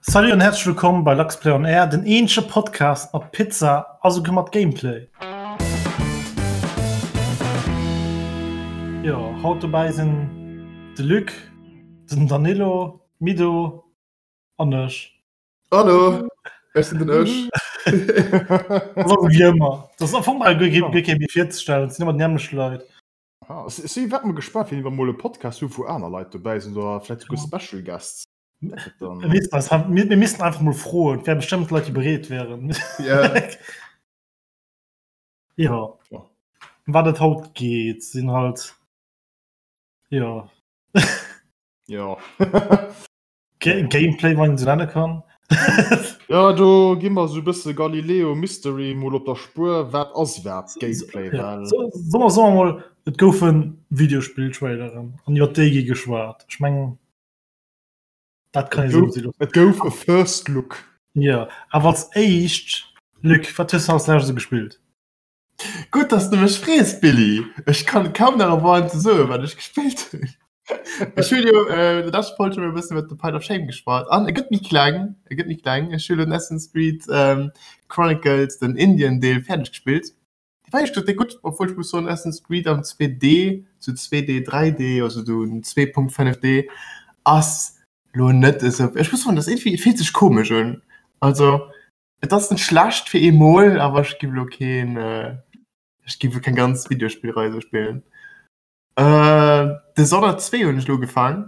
Salut an häerzlech wëllkomm bei Luxplay on Air, den eenzege Podcast mat Pizza a souguer mat Gameplay. Jo, haut dobäi sinn de Luc, den Danilo, Mido an ech. Hallo, ech sinn den Ech. Das ass wéi ëmmer. Dat ass am Fong bal guer kee méi virzestellen, et sinn ëmmer déi nämmlecht Leit. Ah, ech si wat mol gespaant, wéini mer mol e Podcast hu wou aner Leit dobäi sinn oder vläicht souguer Special Guests. Mir missten einfach mol froen, et wäre bestëmmt Leit, déi bereet wären. Ja. Ëm wat et haut geet, sinn halt, jo. Jo. Gameplay, wann een esou nenne kann. Jo, do gi mer esou e bësse Galileo Mystery mol op der Spuer, wat ass iwwerhaapt Gameplay? Well. Soe mer soe mol, et goufe Videospill-Traileren an iwwer déi gi geschwat. Ech mengen, dat kann ee sou loossen. Et gouf e First Look. Jo, awer als éischt, Luc, wat hues de als lescht esou gespillt? Gutt, dass de mech frees, Billy. Ech kann kaum nach erwaarden ze soen, wat ech gespillt hunn. Ech hunn jo äh, der leschter Folg schon e bëssen iwwer de Pile of Shame geschwat. An e gëtt méi kleng, e gëtt méi kleng. Ech hunn elo den Assassin's Creed ähm, Chronicles, den Indien-Deel, fäerdeg gespillt. Dee war éischt gesot déck gutt, obwuel ech muss soen, Assassin's Creed am 2D, zu 2D, 3D, also do 2.5D, ass lo net esou. Ech muss soen, dat ass iergendwéi, et fillt sech komesch un. Also Et ass net schlecht fir eemol, awer ech giff elo keen, ech giff elo keng ganz Videospillrei esou spillen. Dishonored 2 hunn ech elo ugefaang.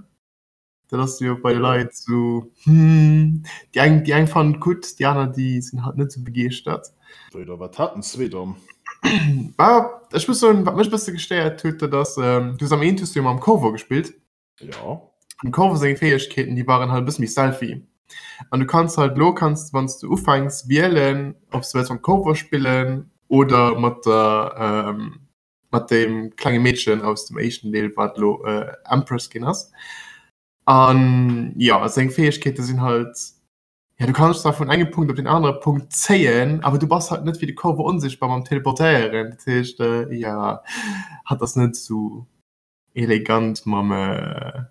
Dat ass jo bei de Leit esou, hm, déi eng, déi eng fannen et gutt, déi aner, déi sinn halt net esou begeeschtert. Wéi da, wat hat den 2 dann? Bah, ech muss soen, wat mech e bësse gestéiert huet, dat ass, du hues am eent hues du jo mam Corvo gespillt. Ja. Dem Corvo seng Fäegkeeten, déi waren halt e bësse méi stealthy. An du kanns halt elo kanns wann s du ufänks wielen, ob s du wëlls mam Corvo spillen oder mat der ähm, mat deem klenge Meedchen aus dem éischten Deel, wat elo äh, Empress ginn ass. An ja, seng Fäegkeete sinn halt, ja du kanns zwar vun engem Punkt op den anere Punkt zéien, awer du bass halt net wéi de Corvo onsichtbar mam Teleportéieren. Dat heescht, äh, ja, hatt ass net esou elegant mam äh,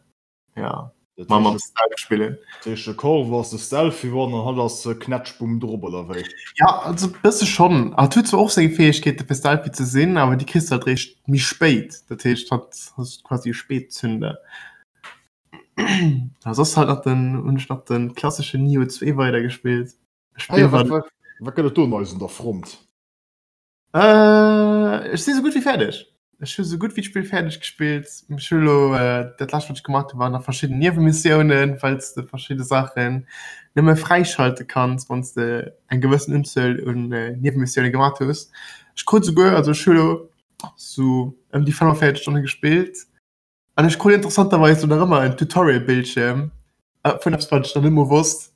ja, mam, mam Stealth spillen. Dat heescht, de Corvo ass de Stealthy One an hatt ass Knätschbumm drop, oder wéi? Ja, also bësse schonn. Hatt huet zwar och seng Fäegkeete fir stealthy ze sinn, awer déi kriss de halt réischt méi spéit. Dat heescht, hatt ass quasi e Spätzünder. A soss halt nach den, hunn ech nach den klasseschen Nioh 2 weidergespillt. Ah ja, wat, wat, wat gëtt et do Neies un der Front? Äh, ech si sou gutt wéi fäerdeg. Ech hu sou gutt wéi d'Spill fäerdeg gespillt. Ech hu lo äh, dat lescht wat ech gemaach hu waren nach verschidden Niewenmissiounen, well s de verschidde Saachen nëmme fräischalte kanns, wann s de eng gewëssen Unzuel un äh, Niewenmissioune gemaach hues. Ech krut souguer, also ech hu lo sou ëm déi 45 Stonne gespillt an ech krut interessanterweis lo nach ëmmer en Tutorial-Bildschierm äh, vun eppes wat ech nach net mol wosst.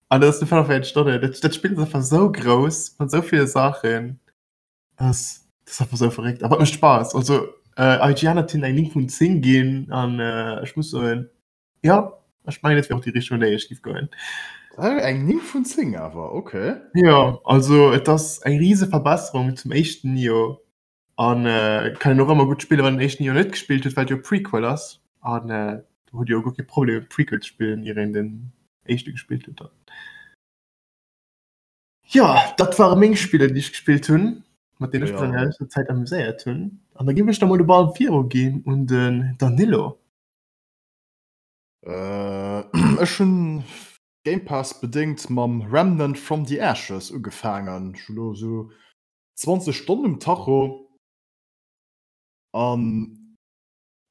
An dat ass de 45 Stonne. Dat, dat Spill ass einfach sou grouss mat sou ville Saachen. Dat ass, dat ass einfach sou verréckt. Awer et mécht Spaass. Also äh, IGN hat hinnen eng 9 vun 10 ginn an äh, ech muss soen, ja, ech mengen, dat wär och déi Richtung, an déi ech giff goen. Eng 9 vun 10 awer, okay. Jo, also et ass eng rise Verbesserung zum éischten Nioh. An kann een och ëmmer gutt spillen, wann een den éischten jo net gespillt huet, well et jo e Prequel ass. An do hutt Dir jo guer kee Problem e Prequel ze spillen, ier een den éischte gespillt huet dann. Jo, dat ware meng Spiller, déi ech gespillt hunn, mat deenen ech mech an der leschter Zäit amuséiert hunn. An da géif ech da mol de Ball viruginn un den Danilo. Ech hunn Game Pass bedéngt mam Remnant from the Ashes ugefaangen. Ech hu lo esou 20 Stonnen um Tacho an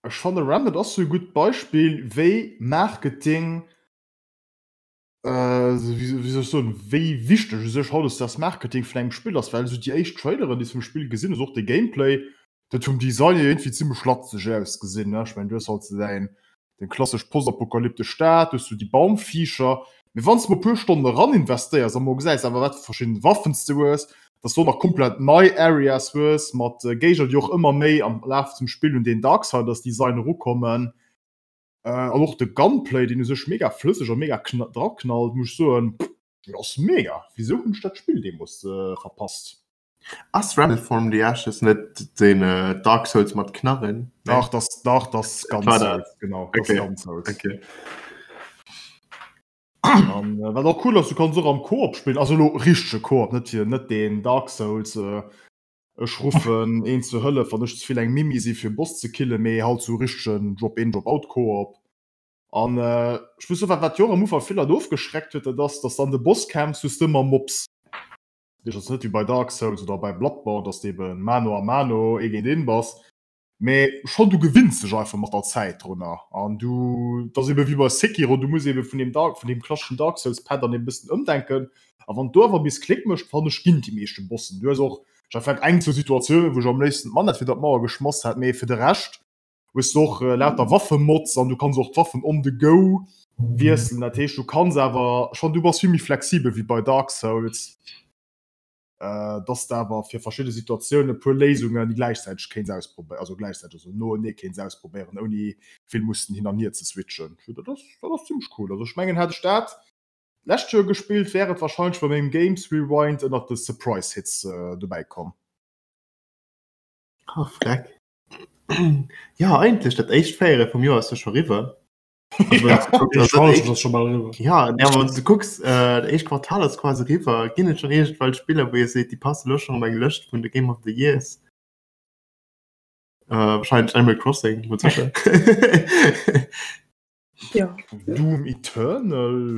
ech fanne Remnant ass sou e gutt Beispill wéi Marketing, wéi soll ech soen, wéi wichteg u sech hautdesdaags Marketing vun engem Spill ass, well esou déi éischt Traileren déi s vum Spill gesinn hues, och de Gameplay, dat huet vum Design hier iergendwéi zimmlech latzeg ausgesinn, ne. Ech mengen du hues halt sou däin Deng klassesch postapokalyptesch Stad, du hues sou déi Baumviecher. Mee wann s de mol e puer Stonnen eran investéiers a mol gesäis awer wat fir verschidden Waffen s de hues, dass du och nach komplett nei Areas hues mat Géigner déi och ëmmer méi am Laf zum Spill un deen Darksiders Design erukommen an och de Gunplay deen u sech mega flësseg a mega draknallt, muss ech soen, dat ass mega. Wisou hunn ech dat Spill deemools verpasst? Ass Remnant from the Ashes net den Dark Souls mat Knarren? Dach, das, dach, das ganz Souls, genau. Das okay. ganz Souls. Okay. An wat och cool ass, du kanns och am Koop spillen, also elo richtege Koop, net fir net deen Dark Souls, ech ruffen een zur Hëllef, wann ech ze vill eng Mimi si fir e Boss ze killen, mee halt sou richtegen Drop-in-Drop-out-Koop. An ech muss soen, wat wat jo och am Ufank vill Leit ofgeschreckt huet, dat ass, dass an de Bosskämpf hues de ëmmer Mobs. Dat heescht, et ass net wéi bei Dark Souls oder bei Bloodborne, dass de eben mano a mano, ee géint een bass, mee schonn du gewinns dech einfach mat der Zäit drunner an du, et ass eben wéi bei Sekiro, du muss eben vun deem Dark, vun deem klasseschen Dark Souls Pattern eben e bëssen ëmdenken a wann do awer bis Klick mécht, fannen ech, ginn déi meeschte Bossen. Du hues och, ech hat vläicht eng, zwou Situatiounen, wou ech am léifsten d'Manett fir der d'Mauer geschmass hätt, mee fir de Rescht hues du och lauter Waffemods an du kanns och d'Waffen on the go wiesselen. Dat heescht, du kanns awer schonn, du bass vill méi flexibel wéi bei Dark Souls, dass de awer fir verschidde Situatiounen e puer Léisungen gläichzäiteg kéints ausprobéieren, also gläichzäiteg, also noenee kéints ausprobéieren, ouni vill mussen hin an hier ze switchen. Dat ass, dat ass zimmlech cool. Also ech mengen, hätt ech dat d'lescht Joer gespillt, wär et warscheinlech bei mengem Games Rewind ënnert de Surprise Hits dobäi komm. Oh, freck. Ja, eigentlech dat éischt Véierel vum Joer ass jo scho riwwer. Ja, ja wann du kucks äh, dat éischt Quartal ass quasi riwwer. Ginn et schon iergendwelch Spiller, wou Dir seet, déi passe lo schon op eng Lëscht vun de Game of the Years? Äh, wahrscheinlech Animal Crossing, mat sécher. Ja. Doom Eternal.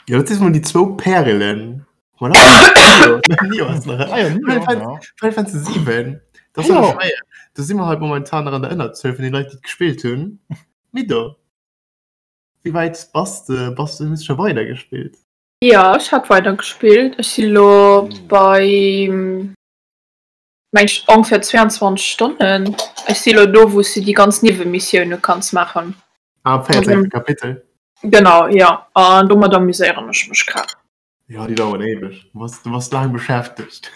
Ja, dat si mol déi zwou Pärelen. Voilà. Nio ass nach. Ah, ja, Nio, ja. Final Fantasy 7. Das ja. schwéier. Da si mer halt momentan nach an der Ënnerzuel vun den Leit, déi gespillt hunn. Mido. Wéi wäit bass de? Bass du hues scho weider gespillt? Ja, ech hat weider gespillt. Ech si lo bei meng ech ongeféier 22 Stonnen. Ech si lo do, wou s du déi ganz Niewemissioune kanns maachen. Ah, am 14. Kapitel. Genau, ja. An domat amuséieren ech mech grad. Ja, déi daueren éiweg. Du bass, du bass laang beschäftegt.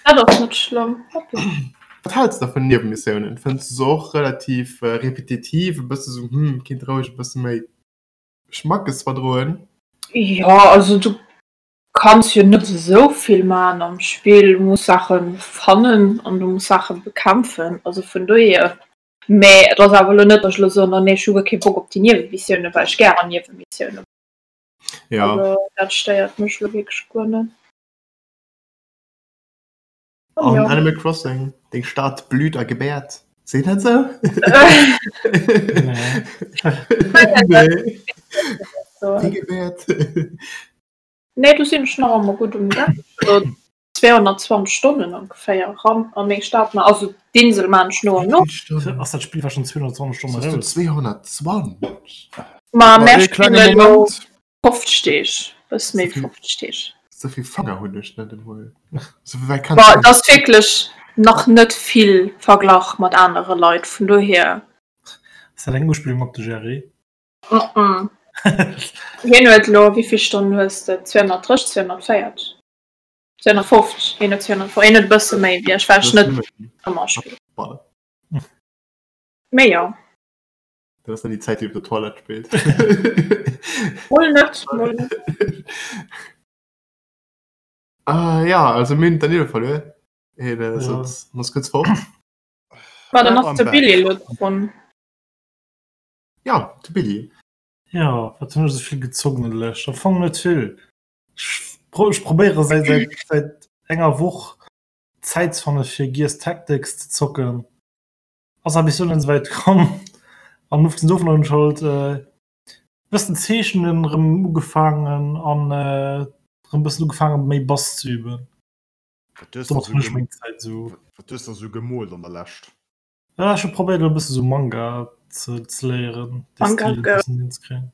Dat ass net schlëmm. Wat hälls de vun Niewenmissiounen? Fënns du se och relativ äh, repetitiv, e bësse sou, hm, kinnt roueg e bësse méi Schmackes verdroen? Ja, also du kanns jo net esou vill man am Spill. Du muss Saache fannen an du muss Saache bekämpfen. Also vun dohier. Mee et ass awer elo net, datt ech elo soen, oh nee, ech hu guer kee Bock op déi Niewemissioune, well ech gären Niewemissioune. Ja. Also dat stéiert mech elo wierklech guer net. An ja. Animal Crossing, deng Stad blüht a gebäert. Seet dat sou? Nee. Nee. Gebäert. Nee, do sinn ech nach ëmmer gutt um Gang. Also 220 Stonnen ongeféier ran an meng Stad, ma also d'Insel maan ech no an no. Ass dat Spill war schon 220 Stonnen raus? 220? Ma mär spillen elo 50 Deeg, bësse méi wéi 50 Deeg. Sou vill Fanger hunn ech net emol. Ma et ass wierklech nach net vill verglach mat anere Leit, vun dohier. Ass dat eng Uspillung op de Jerry? Hien huet elo, wéi vill Stonnen hues de? 230, 240? 250, hien huet 250, hien huet e bësse méi wéi ech, well ech net ëmmer spillen. Mee jo. Dat ass dann déi Zäit, déi op der Toilette spillt. Mol net, mol net. Ah, ja, also mir hunn Danilo verluer. Hien äh, sot, muss kuerz fort. Ma dann ass de Billy elo drun. Ja, de Billy. Ja, wat hunn ech esou vill gezockt an der Lescht? Am Fong net vill. Ech probéiere säit säit säit enger Woch Zäit ze fanne fir Gears Tactics ze zocken. Ass awer bis elo net esouwäit komm. An ofgesinn dovun hunn ech halt e bëssen zeechnen erëm ugefaangen an erëm e bëssen ugefaangen méi Bass ze üben. Wat hues de esou meng Zäit esou. Wat hues de esou gemoolt an der Lescht? Ja, ech hu probéiert elo e bësse sou Manga ze ze léieren, de Manga Stil e Girl. bëssen hinzekréien.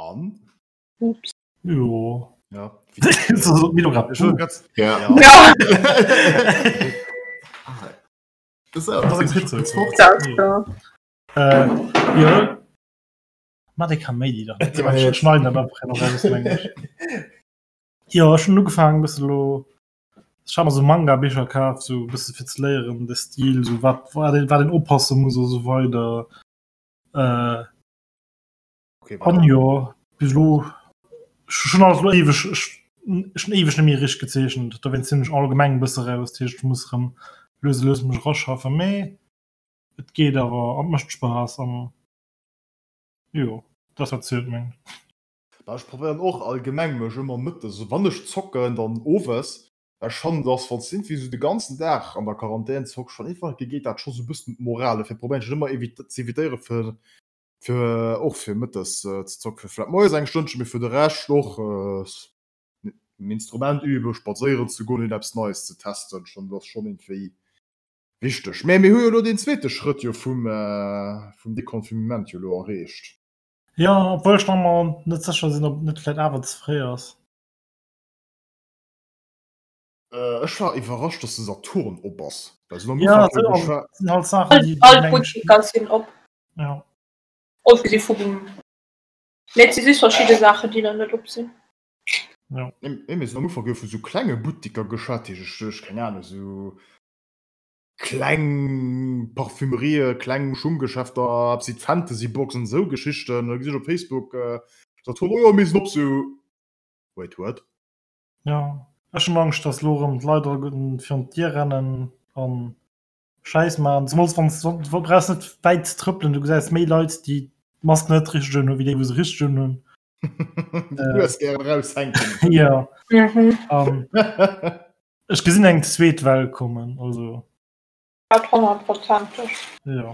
An? Ups. Jo. Ja. Milo grad. Ech wollt grad. Ja. Ja. Ja. Das Das ass eng Pizza. Dat ja. Äh, jo. Ma dee Kaméidi da. Ech schneiden dat einfach nach raus, mengen ech. Jo, ech hunn ugefaangen e bësse lo Ech hat mer sou Manga-Bicher kaf, sou e bësse fir ze léieren, de Stil, sou wat wat een wat een oppasse muss a sou weider. Äh, Okay, an jo, bis elo ech hunn alles elo éiweg ech ech hunn éiweg net méi richteg gezeechent, dowéinst sinn ech allgemeng e bësse raus, dat heescht ech muss erëm lues a lues mech eraschaffen, mee et geet awer an et mécht Spaass an. Jo, dat ass wat zielt, mengen ech. Bah, ech probéieren och allgemeng mech ëmmer mëttes, also wann ech zocken, dann owes, well ech fannen, dass wann s de iergendwéi esou de ganzen Dag an der Quarantän zocks, schonn iergendwann geet dat scho sou e bëssen d'Moral. Dofir probéieren ech et ëmmer ze evitéiere fir fir och fir mëttes ze zocken, fir vläicht moies eng Stënnchen, mee fir de Rescht och en Instrument üben, spadséieren ze goen, eppes Neies ze testen, schonn, dat ass schonn iergendwéi wichteg. Mä mir hu jo elo deen zweete Schrëtt jo vum vum Deconfinement jo elo erreecht. Jo, obwuel ech nach emmer net sécher sinn, ob et net vläit awer ze fréi ass. Ech war iwwerrascht, dass de Saturn op ass. Well se am Ufank jo geschwa. Sinn halt Saachen, déi All d'Butteker sinn op. Ja. Ofgesi vum, mee et si just verschidde Saachen, déi nach net op sinn. Ja. Nee, mee se hunn am Ufank jo vu sou klenge Butteker geschwat, déi ech, ech keng Ahnung, sou kleng Parfümerië, kleng Schunggeschäfter, eppes wéi d'Fantasy-Box an esou Geschichten. Da gesi ech op Facebook Saturn, oh jo, mir sinn op, sou wait, what? Jo, ech hunn Angscht, dass elo erëm d'Leit alleguerten virun d'Dier rennen an Schäiss maachen. Zemools wann s du brauchs net wäit ze trëppelen, du gesäis méi Leit, déi d'Mask net richteg unhunn, wéi déi, wou se richteg unhunn. Déi Nues gären eraushänken. Jo. Ech gesinn eng zweet Well kommen, also. Dat honnertprozenteg. Jo.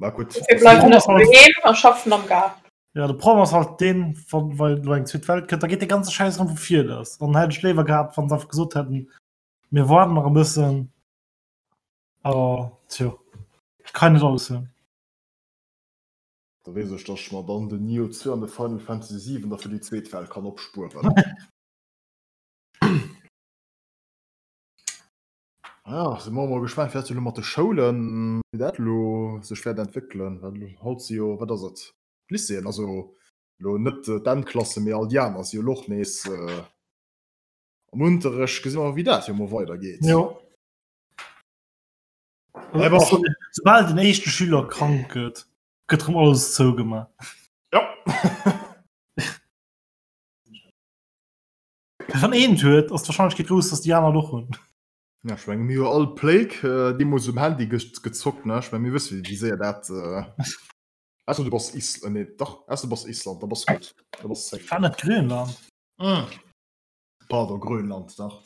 Ma gutt. Dofir bleiwen ech doheem a schaffen am Gaart. Jo, de Problem ass halt deen, wann wa elo eng zweet Well kënnt, da geet dee ganze Schäiss erëm vu vir lass. Dann hätt ech léiwer gehat, wann se einfach gesot hätten, mir waarden nach e bëssen. Awer tjo, kann net alles hunn. Da weess ech, dass ech mer dann den Nioh 2 an de Final Fantasy 7 da fir déi zweet Well kann opspueren. Ja, si mer mol gespaant, wéi dat elo mat de Schoulen, wéi dat elo sech wäert entwéckelen, well haut si jo, wat ass et, d'Lycéeën, also elo net d'Endklassen, mee all déi aner si jo elo och nees am Unterrecht. Gesi mer, wéi dat jo mol weidergeet. Jo. Soubal den éischte Schüler krank gëtt, gëtt rëm alles zougemaach. Jo. Wann een et huet, ass d'Warscheinlechkeet grouss, dass déi aner et och hunn. Ja, ech menge mir hu all Plague deemools um Handy gezockt, ne? Ech menge mir wësse wéi séier dat. Ausser du bass Is nee dach, ausser du bass Island, da bass gutt, da bass safe. War net Grönland? Pardon, Grönland, dach.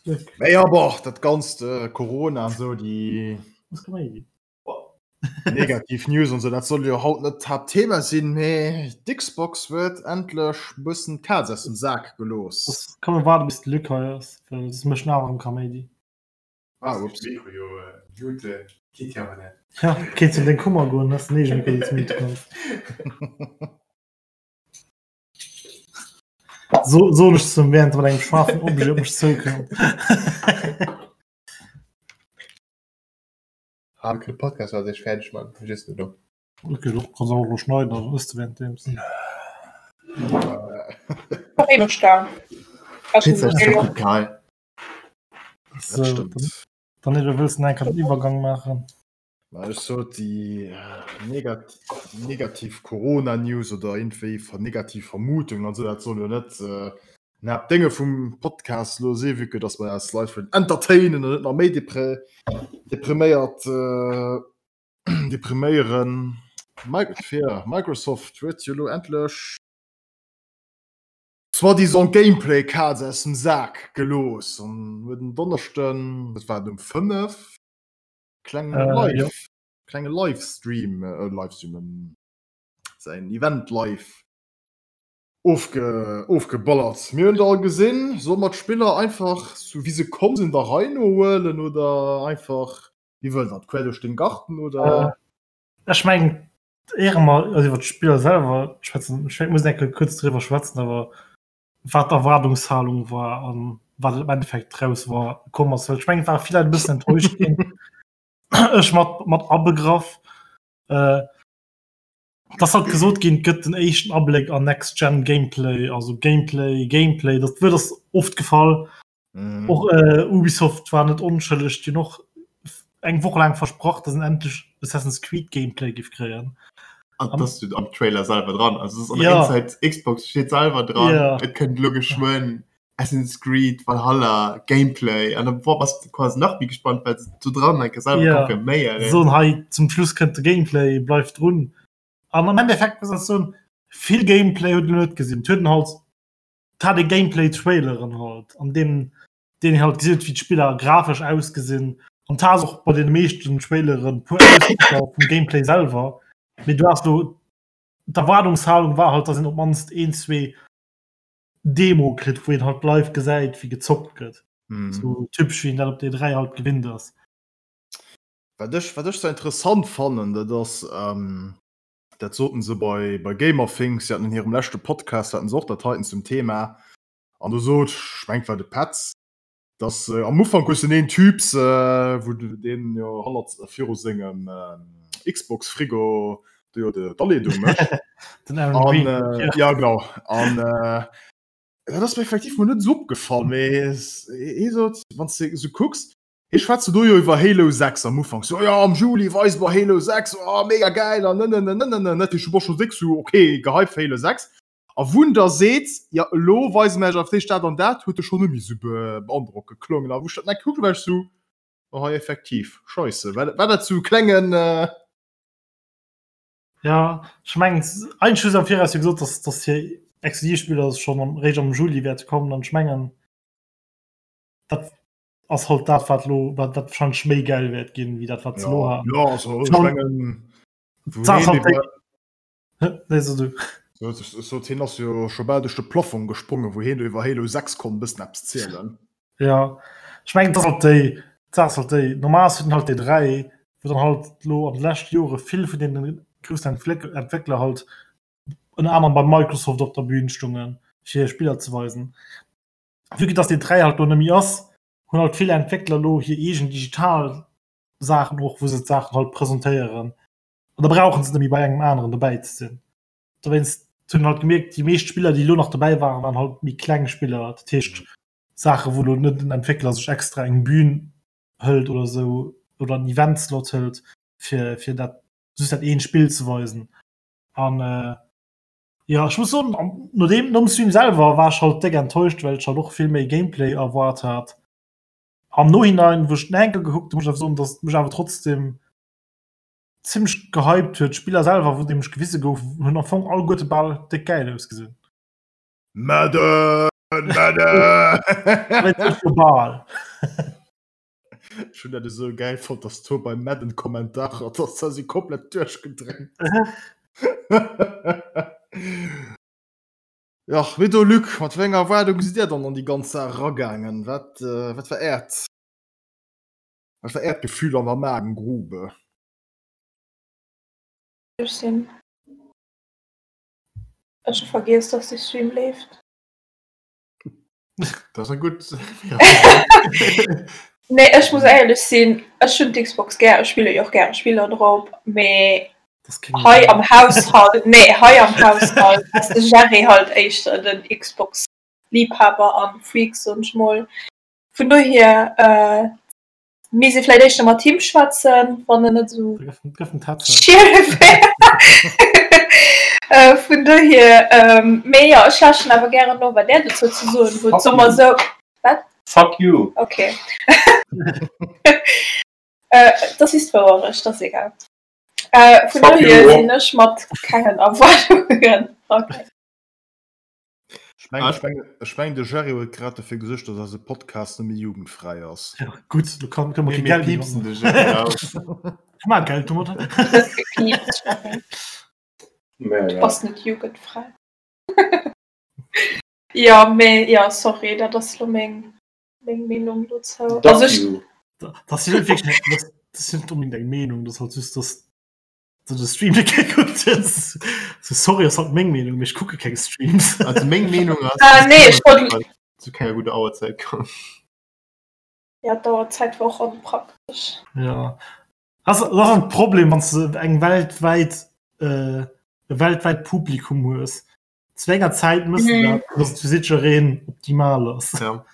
Mee ja, boah, dat ganzt Corona an esou, déi. Negativ News an sou, dat soll jo haut net d'Haaptthema sinn, mee d'Xbox huet endlech bëssen d'Kaz aus dem Sak gelooss. Komm mir waarde bis de Luc hei ass, well soss mécht en awer erëm Kaméidi. Ah, ups. Ja, kéints an deng Kummer goen, hues den eegene Mikro, deen s mute kanns. So, soen ech zum während mat engem scharfen Objet op mech zoukënnt. Ah, de Podcast war sech fäerdeg man just net do. Okay, du kannst auch lo schneiden, also ist du währenddems. Pizza ist doch egal. So, dann, dann du willst du einen Übergang machen. Ma ech sot déi negat negativ Corona-News oder iergendwéi ver negativ Vermutungen an esou, dat soll jo net äh, den Haaptdénge vum Podcast elo si, vue que dass mer eis Leit wëllen entertainen an net nach méi depre depriméiert äh, depriméieren. Fir Microsoft huet jo elo endlech soi-disant Gameplay-Kaz aus dem Sak gelooss an huet en Donneschden, dat war et um 5, Kleng äh, Live, ja. klenge Livestream äh, Livestream ähm, säin Event live ofge ofgeballert. Mir hunn all gesinn, soll mat Spiller einfach so wie se komm sinn der Rei no huelen oder einfach wie wëll dat quer duerch den Garten oder äh, Ech meng Ehre mal also iwwer d'Spiller selwer schwätzen ich muss enke kurz drüber schwätzen, awer wat d'Erwaardungshalung war an wat im Endeffekt draus war komm ass. Well ech mengen, et ware vill Leit e bëssen enttäuscht ginn. Ech mat, mat abegraff. Äh, dass halt gesot ginn, et gëtt den éischten Abléck an Next-Gen Gameplay, also Gameplay, Gameplay, dat Wuert ass oft gefall. Mhm. Och äh, Ubisoft war net onschëlleg, déi hunn och eng Woch laang versprach, dass en endlech Assassin's Creed Gameplay giff kréien. An das steht am Trailer selber dran. Also es ist an Ja. der Inside Xbox steht selber dran. Ja. Et kënnt lo geschwënn. Assassin's Creed Valhalla Gameplay an da bass de quasi nach méi gespannt, well se do dran enke selwer Ja. confirméieren. Soen hei zum Schluss kënnt de Gameplay, bleift drun. An am Endeffekt muss ech soen, vill Gameplay huet een net gesinn. Et huet een halt, et hat ee Gameplay-Traileren halt, an deem deen een halt gesinn huet, wéi d'Spiller grafesch ausgesinn. An et has och bei deene meeschten Traileren e puer Ausschnëtter vum Gameplay selwer. Mee du has do, d'Erwaardungshalung war halt, dass een op d'mannst een, zwee Demo kritt, wou een halt live gesäit, wéi gezockt gëtt. Mhm. Sou typesch, wéi een dat op der E3 halt gewinnt ass. Wat ech, wat ech sou interessant fannen, dat ass, ähm, dat soten se bei, bei Gamerthings, si haten an hirem leschte Podcast, haten se och dat heiten zum Thema, an do sot, ech mengt war de Petz, dass äh, am Ufank hues du den een Typs, äh, wou du deen jo hannert, viru sengem äh, Xbox-Frigo do jo de d'Aleedung mécht. Den Aaron An, Green. äh, ja genau. An äh, dat ass mir effektiv mol net esou opgefall, mee hie sot, wann s de esou kucks, hie schwätzt do jo iwwer Halo 6 am Ufank, so ja am Juli weise mer Halo 6, oh mega gäil an nënnënnënnënnën, dat heescht du bass scho déck sou okay gehypt fir Halo 6. A wou en da seet, ja elo weise mer iech awer d'éischt dat an dat, huet e schonn net méi esou beandrockend geklongen. A wou ech dat nach gekuckt hu war ech sou, oh hei effektiv, scheisse, war war dat sou e klengen. Ja, ech mengen eigentlech hu se am Viraus jo gesot, dass dass hir Exklusivspiller schonn am réischt am Juli wäerte kommen an ech mengen dat ass halt dat wat lo wat wat wahrscheinlech méi gäil wäert ginn wéi dat wat se lo Ja, haten. ja also ech Schon- mengen wou D'Saach heen halt déi iwwer Nee, so du. So, so, hien ass jo scho bal duerch de Plafong gesprongen, wou hien do iwwer Halo 6 konnt e bëssen eppes zielen. Ja, ech mengen, dat ass halt déi, d'Saach ass halt déi, normal ass halt déi 3, wou dann halt lo an de leschte Jore vill vun deene groussen Entwéckler halt ënner anerem bei Microsoft op der Bühn stungen, fir hir Spiller ze weisen. Vue que dass déi 3 halt lo net méi ass, hunn halt vill Entwéckler lo hir eegen digital Saachen och, wou se d'Saachen halt presentéieren. An da brauchen se net méi bei engem aneren dobäi ze sinn. Dowéinst hunn halt gemierkt, déi meescht Spiller, déi elo nach dobäi waren, waren halt méi kleng Spiller. Dat heescht Saache wou elo net den Entwéckler sech extra eng Bühn hëlt oder esou oder en Eventslot hëlt, fir fir dat just dat eent Spill ze weisen. An äh, jo ech muss soen, no deem nom Stream selwer war ech halt déck enttäuscht, well ech halt och vill méi Gameplay erwaart hat. Am Nohinein, wou ech den Enkel gekuckt hunn, muss ech awer soen, datt et mech awer trotzdem zimmlech gehypt huet. D'Spiller selwer, wou nämlech gewise gouf, hunn am Fong alleguerte bal déck gäil ausgesinn. Madden! Madden! Bal. Ech hunn dat esou gäil fonnt, dass do bei Madden Kommentarer, dass da si komplett duerchgedréint. Jach, wéi do Luc, mat wéi enger Erwaardung sidd Dir dann an déi ganz Saach eragaangen? Wat, wat war Äert Wat war Äert Gefühl an der Magengrube? Ech sinn. Ech hu vergiess, dass de Stream leeft. Dat ass eng gutt. Nee, ech muss éierlech sinn, ech hunn d'Xbox gär, ech spille jo och gäre Spiller drop, mee hei am Haushalt, nee, hei am Haushalt ass de Jerry halt éischter den Xbox-Liebhaber an Freak, soen ech mol. Vun dohier äh, misst ee vläicht éischter mat him schwätzen, wann en net esou schiel wär. Äh, vun dohier, ähm, mee jo, ech lauschteren awer gären no, wat Där dozou ze soen hutt. Soe mer esou. Wat? Fuck you! Okay. Äh, das ist d'Wouerecht, das ist egal. Äh, vun dohier sinn ech mat kengen Erwaardungen. Okay. Ech mengen, ech mengen, ech mengen de Jerry huet grad dofir gesuergt, dass eise Podcast net méi jugendfräi ass. Ja, gutt, do kann, kënne mer Mir kee Geld méi piepsen domat de Jerry raus. maachen. Mar Geld domat. Du hues gepiepst, Jerry. Mä Du ja. bass net jugendfräi. Jo, mee jo, sorry, dat ass lo meng, meng Meenung dozou. Duck Also ech, you. Dat ass jo net wierklech, dat ass jo net onbedéngt eng Meenung, dat ass halt just, dass du de Stream net gekuckt hues. So, sorry, ass halt meng Meenung, mee ech kucke keng Streams. Also meng Meenung ass, Ah, nee, ech wollt- zu kenger gudder Auerzäit komm. ja, d'Auerzäit war och onpraktesch. Ja. Das, das ass ein Problem, wann du eng weltwäit äh, e weltwäit Publikum hues. Zu enger Zäit müssen Mhm. dat, dass et fir jiddereen optimal ass. Ja,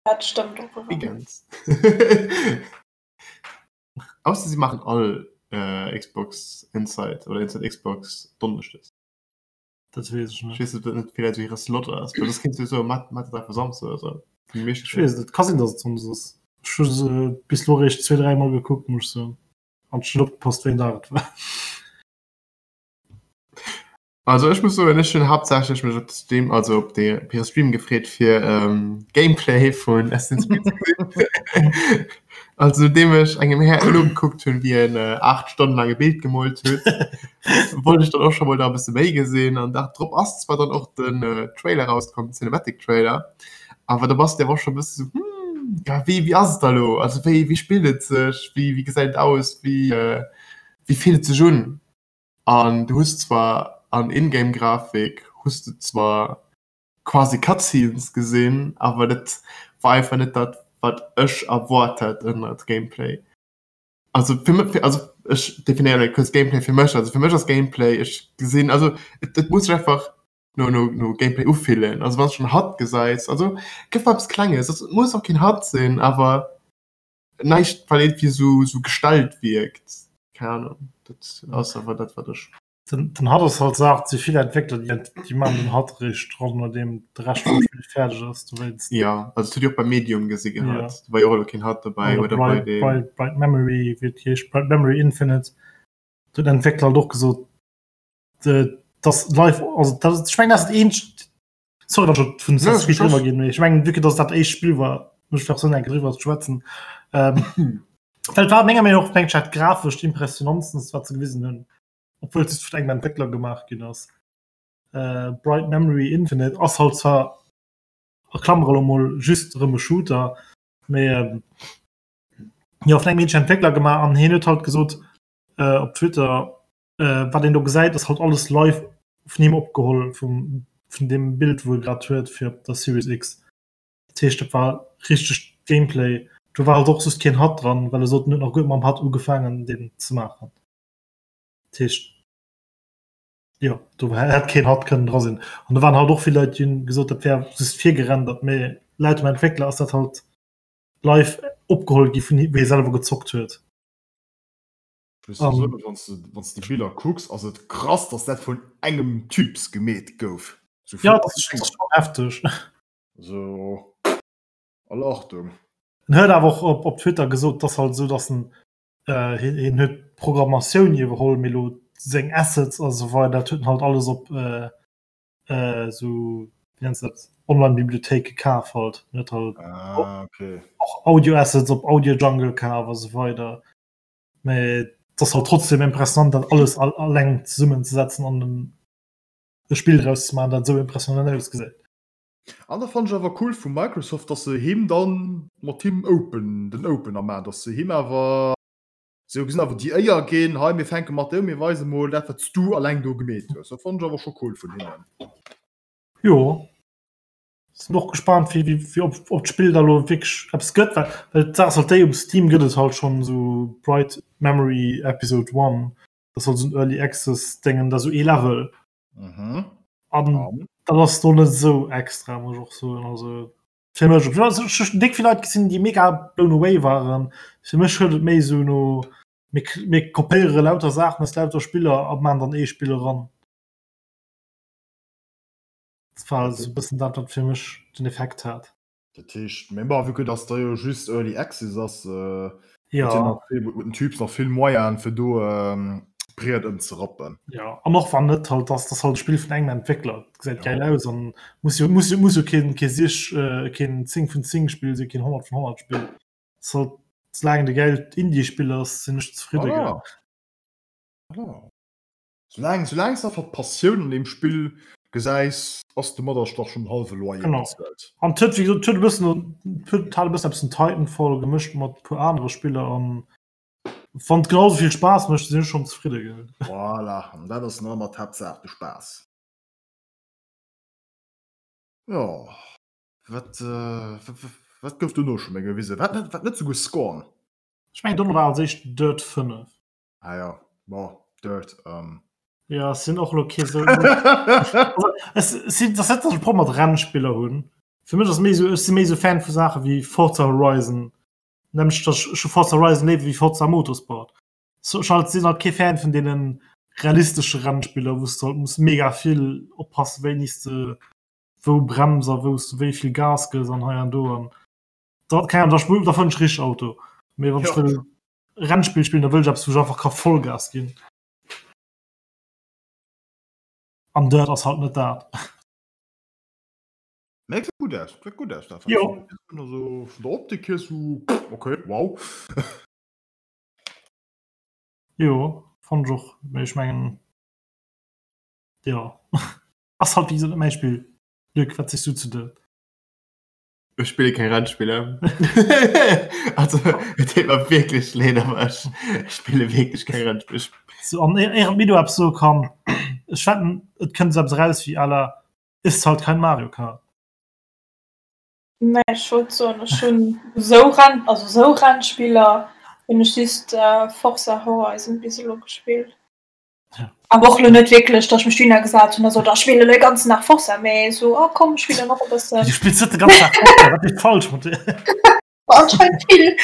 Dat stëmmt och erëm. ganz. Ausser sie machen all äh, Xbox Inside oder Inside Xbox Donneschdes. Dat weess ech net. Ech weess net, ob dat net villäicht esou hire Slot ass, well soss kéints du jo soen, mat mat et einfach Samsdes oder sou. Ech weess et net, ka sinn, datt et Sonndes ass. Ech hu se bis elo eréischt zwee, dräi Mol gekuckt, muss ech soen. An ech hunn net opgepasst, wéi en Dag et war. Also ech muss soen, ech hunn haaptsächlech mech op de Stream, also op de op hire Stream gefreet fir ähm, Gameplay vun Assassin's Creed ze gesinn. Also nodeem ech engem Här nogekuckt hunn, wéi en äh, 8 Stonnen laang e Bild gemoolt huet, wollt ech dann och scho mol da e bësse méi gesinn. An Dag drop ass zwar dann och den äh, Trailer rauskomm, den Cinematic Trailer, awer da bass de awer och scho e bësse sou, hm, ja wéi wéi ass et da lo? Also wéi wéi spillt et sech? Wéi wéi gesäit et aus? Wéi äh, wéi fillt et sech un? An du hues zwar an Ingame Grafik hues du zwar quasi Cutscenes gesinn, awer dat war einfach net dat wat ech erwaart hat ënnert Gameplay. Also fir mech, also ech definéieren elo kuerz Gameplay fir mech, also fir mech ass Gameplay ech gesinn, also et et muss sech einfach no no no Gameplay ufillen. Also wann s schonn HUD gesäis, also gëff mer eppes Klenges, also et muss och keen HUD sinn, awer Näischt wat irgendwie sou sou gestellt wierkt, keng Ahnung, dat ass awer dat wat ech. Den, den HUD ass halt Saach, et si vill Entwéckler déi déi maachen den HUD eréischt dran nodeem de Rescht vum Spill fäerdeg ass, dowéinst. Jo, also dat hutt Dir och beim Medium gesi gehat, do war jo och elo keen HUD dobäi oder bei deem. Bright, Bright Memory, wéi et heescht, Bright Memory Infinite, do huet den Entwéckler halt och gesot, dass live, also dat, ech mengen dat ass dat eenzegt, Sorry, wann ech vun Assassin's Creed driwwer ginn, mee ech mengen, vue que dass dat éischt Spill war, muss ech nach soen, eng Kéier driwwer ze schwätzen. Ähm, well et war menger Meenung och mengt ech dat grafescht impressionantsten, wat se gewisen hunn, obwuel et just vun engem Entwéckler gemaach ginn ass. Äh, Bright Memory Infinite ass halt zwar a Klammere lo mol just erëm e Shooter, mee ähm, jo vun engem eenzegen Entwéckler gemaach an hien huet halt gesot äh, op Twitter, Äh, wat een do gesäit, ass halt alles live vun him opgeholl, vum, vun deem Bild, wou e grad huet fir op der Series X. Dat heescht, dat war richteg Gameplay. Do war halt och just keen HUD dran, well e sot, en huet nach guer net mam HUD ugefaangen, deen ze maachen. Dat heescht, jo, do hätt keen HUD kënnen dra sinn. An do waren halt och vill Leit, déi hunn gesot, dat wär just virgerendert, mee laut dem Entwéckler ass dat halt live opgeholl gi vun him, wéi e selwer gezockt huet. Um, wann du déi Biller kucks, ass et krass, dass dat vun engem Typs gemeet gouf. So ja, das ist schon heftig. So, alle Achtung. En huet awer och op, op Twitter gesot, dass halt so, dass en äh, hien, hien huet Programmatioun iwwerholl, mee lo seng Assets a sou weider, dat huet en halt alles op äh, äh, so wéi nennt se dat Online-Bibliothéike kaf halt. En huet halt ah, okay. och Audio-Assets op Audio Jungle kaf a sou weider. Mee et ass halt trotzdem impressionant, dat alles all, alleng zesummenzesetzen an en e Spill draus ze maachen, dat esou impressionant ausgesäit. An da fannen ech awer cool vu Microsoft, dass se him dann mat him open, den Opener maachen, dass se him awer sou gesinn awer déi Éier ginn, hei mir fänke mat der un, mir weise mol dat wat s du alleng do gemeet hues. Dat fannen ech awer scho cool vun hinnen. Jo. Sinn och gespannt wéi wéi wéi ob ob d'Spill da lo wierklech eppes gëtt, well well d'Saach ass halt déi, um Steam gëtt et halt schonn esou Bright Memory Episode One, dat ass halt esou en Early Access Déngen, dat esou ee Level. Mhm. An An? dat ass do net esou extra, muss ech och soen, also fir mech. Also ech hu déck vill Leit gesinn, déi mega blown away waren. Fir mech huet et méi esou no mir mir kopéiere lauter Saachen aus lauter Spiller a man dann ee Spill eran. Dat war esou e bëssen dat, wat fir mech den Effekt hat. Dat heescht, mee bon, vue que dass da jo just Early Access ass, Ja. huet den Typ nach vill Moyenen, fir do d'Briet ëmzerappen. Ja, an och wann net, halt, dass das halt e Spill vun engem Entwéckler, dat gesäit gäil aus an muss jo, muss jo, muss jo keen, kee sich, keen 10 vun 10 Spill sinn, keen 100 vun 100 Spill. Ass halt, soulaang et e gäilt Indie-Spill ass, sinn ech zefridde, gell. Voilà. Voilà. Soulaang soulaang s de einfach d'Passioun an deem Spill gesäis, ass domadder dach schonn den hallwe Loyer Genau. bezuelt. An et huet, wéi gesot, et huet e bëssen, et huet hat e bëssen eppes vun Titanfall gemëscht mat e puer anere Spiller an wann et genau esou vill Spaass mécht, sinn ech schonn zefridde gell. Voilà, an dat ass nach ëmmer d'Haaptsaach, de Spaass. Jo, wat wat gouf dono scho méi gewisen? Wat net wat net souguer Scorn? Ech mengen dono war als éischt Dirt 5. Ah ja, bon, Dirt. Ähm. Ja, sinn och lo kee sou. Es sinn das net, dass ech e Problem mat Rennspiller hunn. Fir mech ass méi sou, ech si méi sou Fan vu Saache wéi Forza Horizon. Nämlech dass ech hu Forza Horizon léiwer wéi Forza Motorsport. So ech halt sinn halt kee Fan vun deenen. realistesche Rennspiller, wou s de halt muss mega vill oppassen, wéini s de wou brems a wou s de wéi vill Gas gëss an hei an do an da, keng Ahnung, da sp da fannen ech richteg Auto. Mee wann ech wëll Rennspill spillen, da wëll ech eppes, wou ech einfach ka Vollgas ginn. An Dirt ass halt net dat. Nee, gesäit gutt aus, gesäit gutt aus dat. Jo. Also vun der Optik hier sou okay, wow. Jo, fand ech och, mee ech mengen jo ass halt wéi gesot net mäi Spill. Luc, wat sees du zu Dirt? Ech spille keng Rennspiller. Also et deet mer wierklech leed, awer ech spille wierklech keng Rennspiller. So, an éier d'Mido eppes soe kann, ech wetten et kënnt esou eppes eraus wéi à la Ist halt kein Mario Kart. Nee, ech wollt soen, ech hunn esou Renn, also esou Rennspiller hunn ech just Forza Horizon bis elo gespillt. Ja. Awer och elo net wierklech, datt ech mech dohinner gesat hunn a sot, ah, ech spillen elo de ganzen Dag Forza, mee esou, ah komm, ech spillen och e bëssen. Du spills net de ganzen Dag Forza, wat ass falsch mat dir? Anscheinend vill.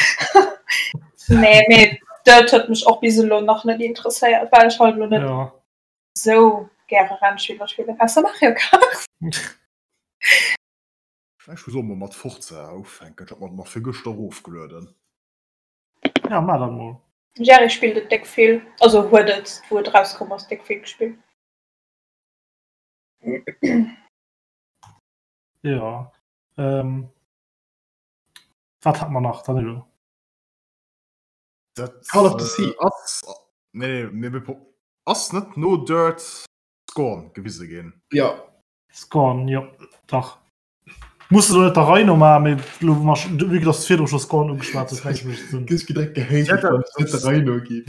Nee, mee dat huet mech och bis elo nach net interesséiert, well ech halt elo net Ja. esou gäre Rennspiller spillen, ausser Mario Kart. Ech muss och mol mat Forza ufänken, ech hat mer nach virgëschter erofgelueden. Ja, maach dat mol. Jerry spillt et déck vill, also huet et wou et erauskomm ass déck vill gespillt. Jo, ähm, wat hat mer nach, Danilo? Dat Call of the Sea. ass, nee, nee, mir ass net no Dirt Scorn gewise ginn. Jo. Scorn, jo, dach. Muss elo net der Rei no maachen, mee elo wou mer scho, vue que dass du virdru scho Scorn ugeschwat hues, mengen ech mécht et Sënn. Gëss direkt gehatet, Ja, wann et net der Rei no geet.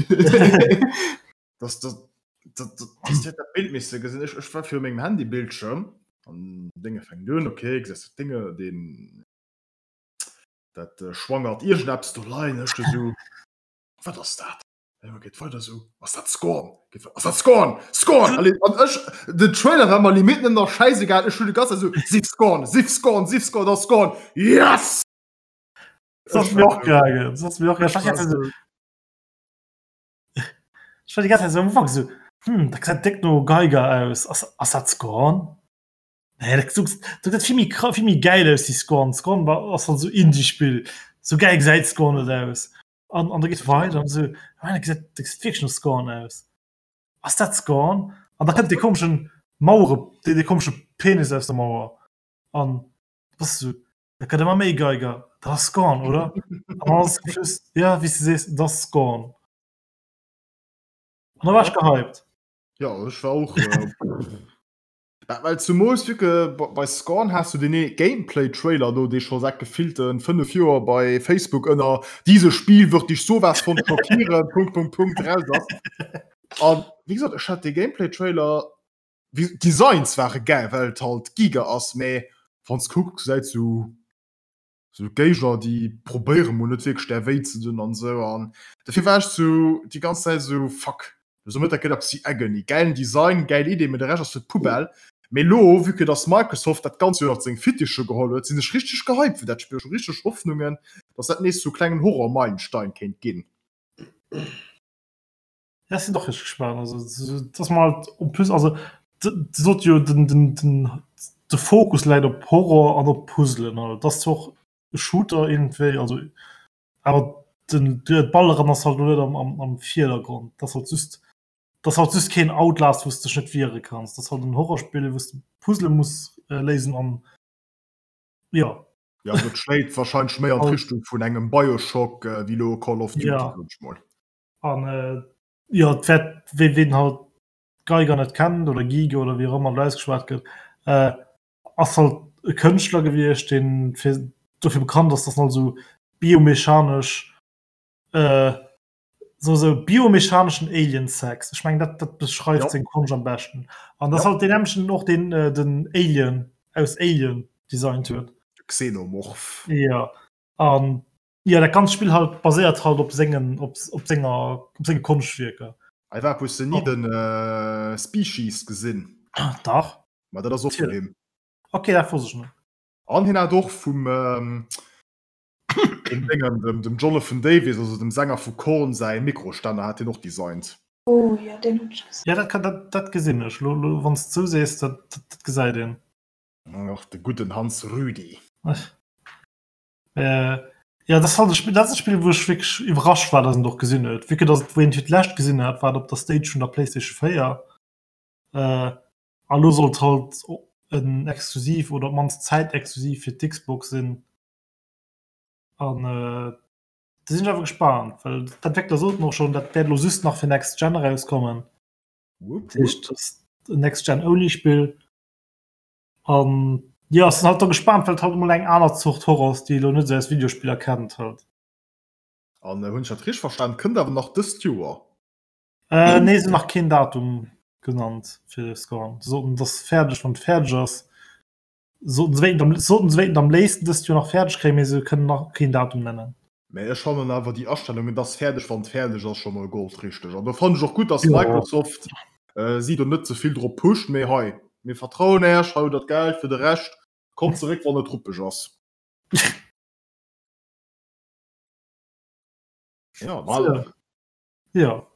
Das, das, das, das, das huet dat Bild misse gesinn. Ech, ech war viru mengem Handybildschirm an Dénge fänkt un, okay, gesäis dat Dénge, deen, dat äh, schwangert iergendeppes do leien, ech du sou, wat ass dat? Ja, geet weider sou, ass dat Scorn? Geet weider, ass dat Scorn? Scorn! Allez, an ech, den Trailer war mer limite net nach schäisegal, ech hunn de ganze Zäit sou, sief Scorn, sief Scorn, sief Scorn, das Scorn, yes! Das ass mir och gaangen, das ass mir och gaangen. Ech war die ganze Zäit sou, ech war die ganze Zäit sou am Ufank sou, hm, dat gesäit déck no Geiger aus, ass, ass dat Scorn? Nee, dat dat gesäit vill méi kra vill méi gäil aus wéi Scorn. Scorn war ass halt sou Indie-Spill, sou gäil gesäit Scorn net aus. An an da geet weider an esou, ah, dat gesäit dat gesäit wierklech no Scorn aus. Ass dat Scorn? An da kënnt dee komeschen Mauere dee dee komesche Penis aus der Mauer an du bass esou, dat gëtt ëmmer méi Geiger, dat ass Scorn, oder? An dann ass zum Schluss, ja, wéi s du sees, dat ass Scorn. An da war ech gehypt. Ja, ech war och. Äh, Well zumools vu que bei Scorn has du deen Gameplay Trailer do dee scho säit gefillten 5 Joer bei Facebook ënner Dieses Spiel wird dich sowas von schockieren Punkt Punkt Punkt raus ass. An wéi gesot ech hat dee Gameplay Trailer wéi d'Designs ware gäil well et halt Giger ass mä wanns kucks gesäit sou sou Géigner déi probéiere mol net wierklech där wéi ze dun an esou an dofir war ech sou déi ganz Zäit sou fuck esou mëtt dat gëtt eppes wéi Agony, gäilen Design, gäil Idee, mee de Rescht ass fir d'Poubelle. Mee elo vue que dass Microsoft dat Ganzt jo ënnert seng Fittiche geholl huet, sinn ech richteg gehypt fir dat Spill, ech hu richteg Hoffnungen dass dat nees sou klengen Horror-Meilenstein kéint ginn. Ja, ech sinn och richteg gespaant. Also, dass mer halt en plus, also sot jo den, den, den, de Fokus läit op Horror an op Puzzlen. Also, dat ass zwar och e Shooter iergendwéi, also awer den, d'Balleren ass halt elo net am, am, am Virdergrond. Dat ass halt just, dat ass halt just keen Outlast, wou s de dech net wiere kanns. Dat ass halt en Horrorspill, wou s de Puzzle muss léisen an jo. Ja, also et schléit warscheinlech méi an d'Richtung vun engem Bioshock wéi elo Call of Duty, Ja. soen ech mol. An äh, jo, et wäert, wee ween halt Geiger net kennt oder Giger oder wéi och ëmmer et ausgeschwat gëtt, äh, ass halt e Kënschtler gewiescht, deen fir dofir bekannt ass, dass en halt esou biomechanesch äh, sou sou biomechaneschen Alien-Sex. Ech mengen dat dat beschreift Ja. seng Konscht am beschten. An dat ass Ja. halt deen nämmlechten och deen äh, den Alien aus Alien designt huet. Xenomorph. Ja. An ja dat ganzt Spill halt baséiert halt op sengen op, op senger op senge Konschtwierker. Ei war hues de ni den äh, Species gesinn? Dach. Ma dat ass och vun him. Okay, dat wosst ech net. An hien hat och vum ähm, dem Déngen, dem, dem Jonathan Davis, also dem Sänger vu Korn säi Mikrostänner hat hien och designt. Oh jo, deen hunn ech gesinn. Ja, dat kann, dat, dat gesinn ech. Lo, lo, wann s de sou sees, dat, dat, dat gesäit een. Och de gudden Hans Rüdi. Äh, ja, dat ass halt e Spill, dat ass e Spill, wou ech wierklech iwwerrascht war, dass en et och gesinn huet. Vue que dass et, wou een et fir d'lescht gesinn hat, war et op der Stage vun der PlayStation 4. Äh, a lo soll et halt en Exklusiv oder op d'mannst zäitexklusiv fir d'Xbox sinn. An äh, Do sinn ech awer gespaant, well d'Entwéckler soten och schonn, dat wäert elo just nach fir Next Gen erauskommen. Dat heescht, dat ass en Next Gen Only Spill. An jo, ech sinn halt do gespaant, well et halt emol eng aner Zort Horror ass, déi ee elo net esou aus Videospiller kennt halt. An hunn ech dat richteg verstan, kënnt awer nach dëst Joer? Äh, nee, se hunn nach keen Datum genannt fir Scorn. Se soten, et ass fäerdeg, wann et fäerdeg ass. Soten se wéinten am, soten se wéinten am léifsten dëst Joer nach fäerdeg kréien, mee se kënnen nach keen Datum nennen. Mee ech fannen awer déi Astellung, et ass fäerdeg wann et fäerdeg ass, scho mol goldrichteg. An do fannen ech och gutt, dass Microsoft si do net ze vill drop pusht, mee hei, mir vertrauen Äech, hei hutt der d'Geld fir de Rescht, kommt zeréck wann et ruppeg ass. Jo, voilà. Jo.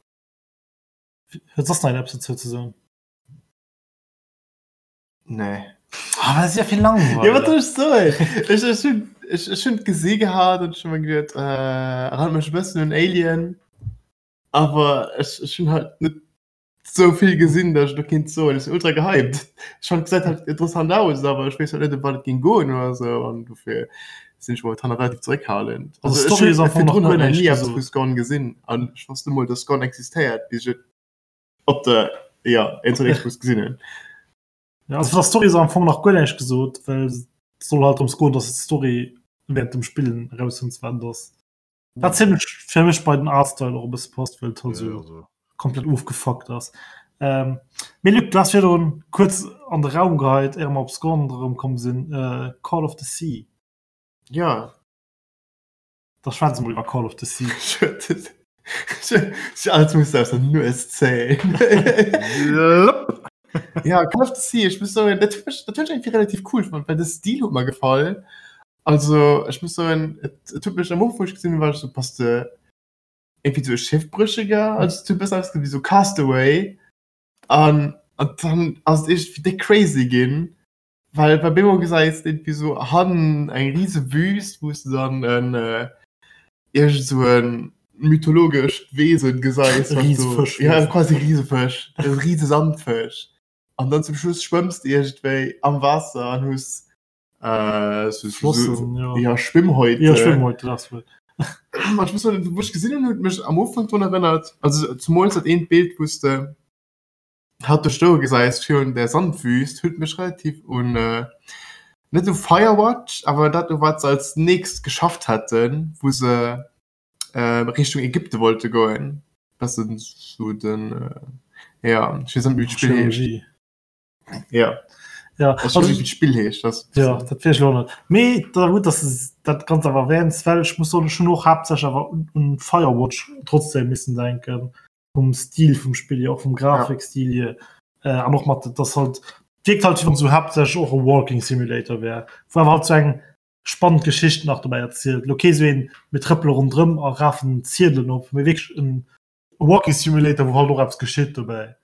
Huet soss nach een eppes dozou ze soen? Nee. Ah, dat ass ja vill langweilig. Ja, wat soll ech soen? Ech, ech hunn ech, ech hunn gesi gehat an ech hunn mer geduet, äh, erinnert mech e bëssen un Alien. Awer ech, ech hunn halt net sou vill gesinn, datt ech do kinnt soen, ech sinn ultra gehypt. Ech fand, gesäit halt interessant aus, awer ech weess halt net, ëm wat et géing goen oder sou an dofir sinn ech momentan nach relativ zeréckhalend. Also, Also ech d'Story hunn ass am Fong nach virdrun guer halt nach näischt ni eppes gesot. vu Scorn gesinn an ech wosst net mol, datt Scorn existéiert, bis ech et op der ja, Xbox gesinn hunn. Ja, also vun der Story ass am Fong nach guer näischt gesot, well et soll halt drëms goen, dass d'Story während dem Spillen erausfënns, wat et ass. Wat zimmlech fir mech bei den Artstyle och e bësse passt, well et halt Ja, esou also. komplett ofgefuckt ass. Ähm, mee Luc, du has virdrun kuerz an de Raum geheit, éier mer op Scorn erëmkomm sinn, äh, Call of the Sea. Ja. Da schwätze mol iwwer Call of the Sea. Ech alles muss aus der Nues zéien. Ja, Call of the Sea, ech muss soen, dat huet mech, dat huet ech irgendwie relativ cool fonnt, well de Stil huet mer gefall. Also ech muss soen, et, et huet mech am Ufank, wou ech gesinn hunn, war ech sou, bass de irgendwie sou e Schiffbrécheger? Also et huet e bëssen ausgesinn wéi sou Castaway. An, an dann ass et iergendwéi déck crazy ginn. Well bei Bemo gesäis de irgendwie sou hannen eng riese Wüst, wou s de dann en iergend sou en mythologescht Wesen gesäis, E wat do, Risefësch. ja quasi Risefësch, e riese Sandfësch. An dann zum Schluss schwëmms de iergendwéi am Waasser an hues äh, sou, sou, Flossen, jo. ja, Schwimmhäute. Ja, Schwimmhäute, dat ass wuel. An ech muss soen, wou ech gesinn hunn, huet mech am Ufank drun erënnert, also zemools dat eent Bild, wou s de Hat do stoe gesäis virun der Sandwüst huet mech relativ un net u Firewatch, awer dat u wat se als nächst geschafft haten, wou se Richtung Ägypte wollte goen. Bessen sou den ja ech weess net méi wéi d'Spill heescht. Ja Ja, ech weess net wéi d'Spill heescht, dat ja dat weess ech och net. Mee da gutt, datt s de dat Ganzt awer erwähns, well ech muss soen, ech hunn och haaptsächlech awer un Firewatch trotzdem missen denken. vum Stil vum Spill hier, och vum Grafikstil hier äh, an och mat das halt wirkt halt wéi wann so haaptsächlech och e Walking Simulator wär, wou awer halt so eng spannend Geschicht nach dobäi erzielt. Lo kee sou een mir trëppele ronderëm a rafen Ziedelen op, mee wierklech en Walking Simulator, wou halt och eppes geschitt dobäi.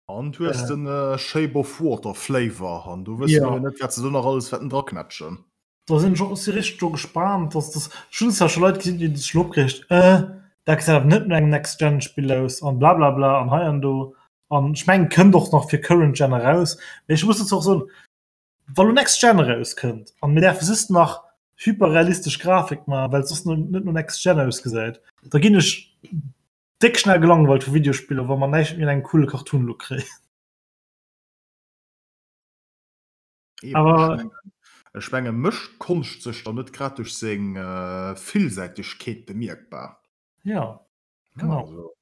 An du hues den Shape of Water Flavor an do wësse Ja. mir jo net, wat se do nach alles wäerten draknätschen. Da sinn ech och si richteg do gespaant, dass das ech hunn zwar scho Leit gesinn, déi sech schon opgereegt, äh, dat gesäit awer net no engem Next-Gen-Spill aus an blablabla an hei an do. An ech mengen, kënnt och nach fir Current Gen eraus. Mee ech muss dozou och soen, wa lo Next Gen erauskënnt an mir däerfe just nach hyperrealistesch Grafik maachen, well et soss net no Next Gen ausgesäit, da ginn ech déck schnell gelangweilt vu Videospiller, wa mer näischt méi an engem coole Cartoon-Look kréien. Eben, Awer- ech mengen, ech menge mécht Konscht sech dann net grad duerch seng äh, Villsäitegkeet bemierkbar. Ja, Ja, genau. also,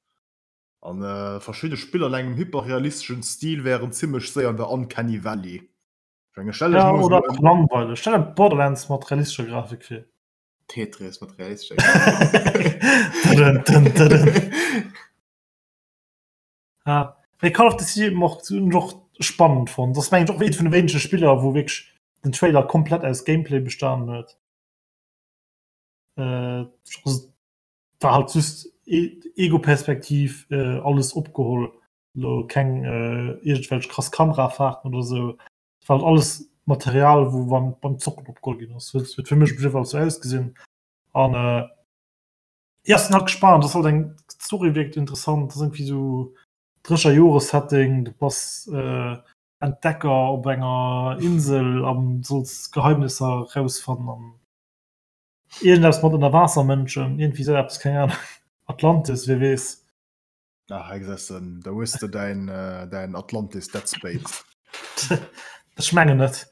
an äh, verschidde Spiller an engem hyperrealisteschen Stil wären zimmlech séier an der Uncanny Valley. Ech menge stell dech Ja, mol oder esou och en langweileg. Stell der Borderlands mat realistescher Grafik vir. Tetris mat realistescher Dëdën, dën, dëdën. Ja. Mee Call of the Sea mocht hunn ech och spannend fonnt. Dat ass mengen ech och eent vun de wéinege Spiller, wou wierklech den Trailer komplett aus Gameplay bestanen huet. Äh, also, war halt just. Ego-Perspektiv äh, alles opgeholl. Lo keng äh, iergendwelch krass Kamerafahrten oder sou. Et war halt alles Material, wou beim, beim Zocken opgeholl ginn ass. Huet, huet fir mech op jidde Fall sou ausgesinn. An äh, ja, sinn halt gespannt. Das halt eng Story wirkt interessant. Das ass irgendwie sou drécher Jore-Setting. Du bass äh, Entdecker op enger Insel an solls Geheimnisser rausfannen an iergendeppes mat Ënnerwaassermënschen, iergendwéi sou eppes, keng Ahnung. Atlantis, wie weess. Ah, hei gesäis de, da hues de däin, däin Atlantis Dead Space. Ech mengen net.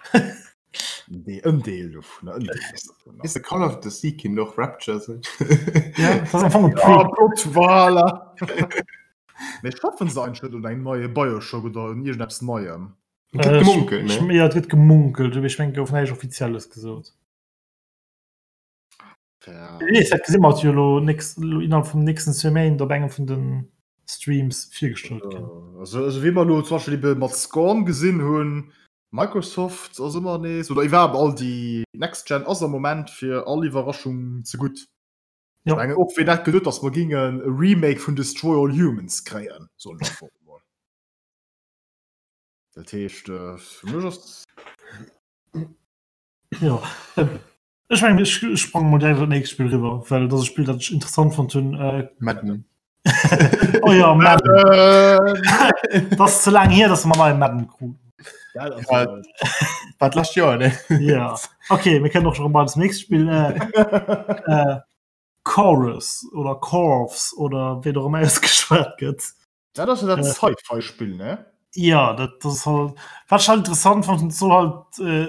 Dee, en Deel dovunner, en Deel dovunner. Weess de, Call of the Sea kinnt och Rapture sinn. Ja, dat ass am Fong e Ja, Prequel. Plot, voilà. Mee schaffen se eigentlech net un engem neie Bioshock oder un iergendeppes Neiem? Et gëtt gemunkelt, ne? Ja, et gëtt gemunkelt, mee ech mengen, et gouf näischt Offizielles gesot. Ja. Wie weess, dat gesi mer jo elo nächst, elo innerhalb vum nächsten zwee Méint op engem vun de Streams virgestallt ginn. Also, also wéi mer elo zum Beispill ebe mat Scorn gesinn hunn, Microsoft ass ëmmer nees, oder iwwerhaapt all déi Next Gen ass am Moment fir all Iwwerraschung ze gutt. Ja. Ech mengen och wien hätt geduet, datt mer gingen e Remake vun Destroy All Humans kréien, soen ech einfach emol. Dat heescht, fir mech ass. Jo, ech mengen ech sprange mol direkt op dat nächst Spill riwwer, well dat ass e Spill, dat ech interessant fonnt hunn. Madden. Oh ja, Madden. Dat ass ze laang hier, datt mer neie Madden kruten. Ja, Ja. War d'lescht Joer, ne? Ja, okay, mir kënnen och schon mal das nächste Spiel. Äh, äh, Chorus oder Corvs oder wéi och ëmmer ausgeschwat gëtt. Dat ass jo dat Sci-Fi-Spill, ne? Ja, dat, dat ass halt, wat ich halt interessant fand, soll halt äh,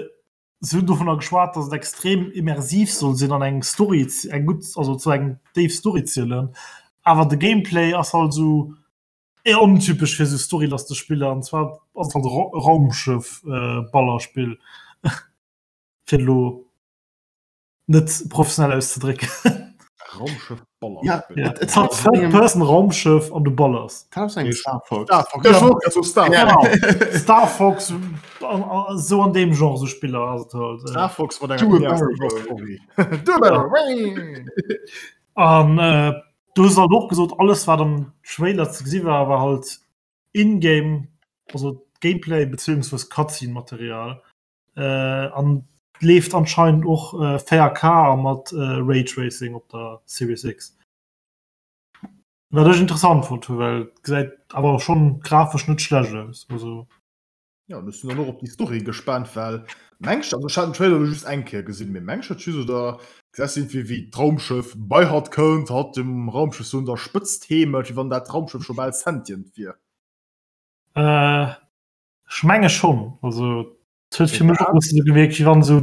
se hunn dovunner geschwat, dass et extrem immersiv soll sinn an eng Story, eng gutt, also zu eng déif Story zielen. Awer de Gameplay ass halt sou eher ontypesch fir sou storylastig Spiller an zwar ass et halt e Raumschëff äh, Ballerspill fir elo net professionell auszedrécken. Raumschëff Ja, Ballerspill. Ja. et, et Et hat Third Person Raumschëff an du ballers. hat aus engem Star Fox. Star Fox. Ja, ich wollt grad so Star Ja. Fox. Genau. Star Fox an, an, so an dem Genre so Spiller ass et halt. Äh. Star Fox mat Do enger a barrel roll. Story. Do a barrel roll. An äh, du hues halt och gesot, alles wat am Trailer ze gesi war, war halt in-game, also Gameplay beziehungsweise Cutscene-Material. Äh, an leeft anscheinend och äh, 4K a mat äh, Raytracing op der Series X. Wat ech interessant fonnt hu, well gesäit awer schon grafesch net schlecht aus. Also Ja, ech sinn dann och op déi Story gespaant, well mengs also ech hat den Trailer elo just eng Kéier gesinn, mee mengs dat just oder gesäis du iergendwéi wéi d'Raumschëff bei hatt kënnt, hatt dem Raumschëff sou un der Spëtzt heemelt, wéi wann dat Raumschëff scho bal sentient wier? Äh, ech menge schonn. Also et huet fir mech och e bësse sou gewierkt, wéi wann sou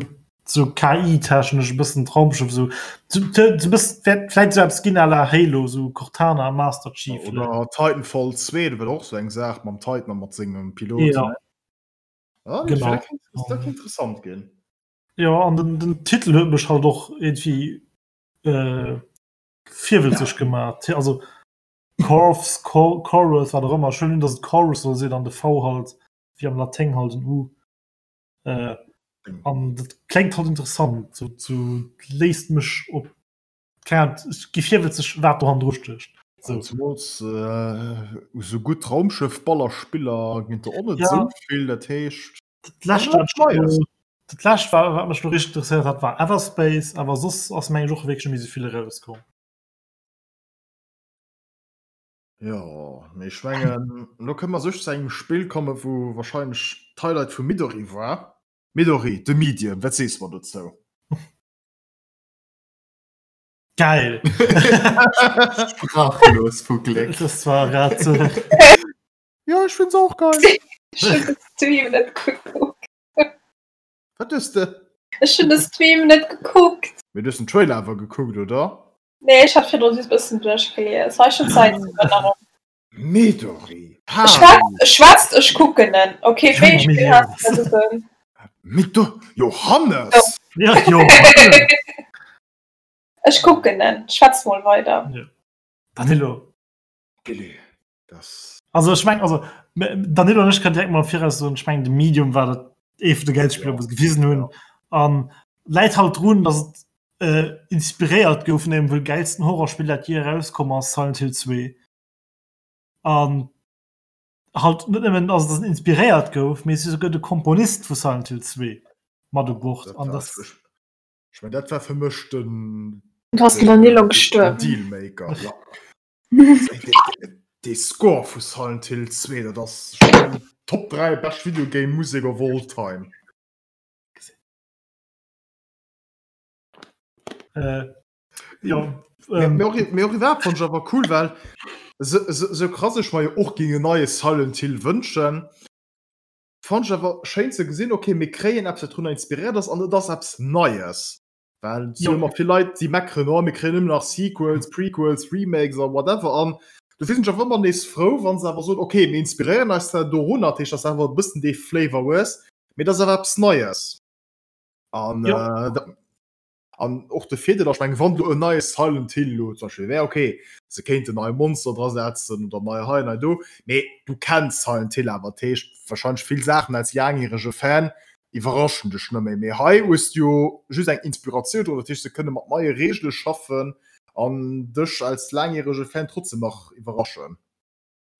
sou KI-technesch e bëssen d'Raumschëff sou sou sou bëssen wäert vläit sou eppes ginn à la Halo, sou Cortana, Master Chief. Oder Titanfall 2, dat war och sou eng Saach mam Titan a mat sengem Pilot. Ja. Ah, Genau. dat kéint, dat kéint interessant ginn. Jo, an den, den Titel huet mech halt och irgendwie äh, virwëtzeg gemaach. Also Corvs, Cor Chorus, wat och ëmmer. Ech huelen un, datt et Chorus soll sinn an de V halt wéi am Laténg halt en U. Äh, an dat kléngt halt interessant, so, so léisst mech op keng Ahnung, ech gi virwëtzeg, wat do hannendru stécht. So. Zemools äh, sou gutt Raumschëff-Ballerspiller ginn et der och net Ja. sou vill, dat heescht. Dat lescht, wat ech lo- dat lescht war, wat mech lo richteg interesséiert hat, war Everspace, awer soss ass meng ech och wierklech net méi sou vill erauskomm. Jo, mee ech mengen, elo kënne mer sech zu engem Spill kommen, wou wahrscheinlech d'Highlight vum Midori war. Midori, The Medium, wat sees mer dozou? Geil! Sprachlos vu Gléck. Das war grad so. Jo, ech find's och geil. Ech hunn de Stream net gekuckt. Wat hues de? Ech hunn de Stream net gekuckt. Mee du hues den Trailer awer gekuckt, oder? Nee, ech hat virdru just bëssen duerchgelies. Hei schon Zäit zu Erinnerung. Midori! Schwätzt, schwätzt, ech kucken en. Okay, wéi ee Spill has du da gesinn? Midori! Johannes! Ja, Johannes! Ech kucken en. Schwätzt mol weider. Ja. Danilo. Gilly, das. Also ech meng, also Danilo an ech kann direkt mal viraus soen, ech meng de Medium war dat ee vun de geilste Spiller, wou se gewisen hunn. An läit halt drun, datt et. äh, inspiréiert gouf vun engem wuel gäilsten Horrorspill, dat jee erauskomm ass, Silent Hill 2. An halt net nëmmen ass dass en inspiréiert gouf, mee souguer de Komponist vu Silent Hill 2 mat u Bord. An das Ech mein, dat war fir mech den Ass den Danilo gestuerwen? Dealmaker. Ja. Dee Score vu Silent Hill 2, dat ass Top 3 bescht Videogame Musek of all time. Äh, ja, ähm, mir och, mir och iwwerhaupt fand ich awer cool, well so, so, so krass ech mer jo och ging en neie Silent Hill wënschen, fand ich awer schéin ze gesinn, okay, mir kréien eppes, wat drunner inspiréiert ass an et ass eppes Neies. Well et si jo ëmmer vill Leit, déi meckeren, oh, mir kréien ëmmer nach Sequels, Prequels, Remakes a whatever an dofir sinn ech awer ëmmer nees frou, wa se awer soen, okay, mir inspiréieren eis zwar dorunner, dat heescht, dass awer e bëssen dee Flavor hues, mee et ass awer eppes Neies. An, ja. äh, an och de Virdeel ass, ech mengen, wann do en neie Silent Hill elo zum Beispill wär, okay, se kéinten nei Monster dra setzen oder nei hei, nei do, mee du kenns Silent Hill awer, dat heescht wahrscheinlech vill Saachen als laangjärege Fan iwwerraschen dech net méi. Mee hei hues du jo just eng Inspiratioun dran, dat heescht se kënne mat neie Reegele schaffen an dech als laangjärege Fan trotzdem nach iwwerraschen.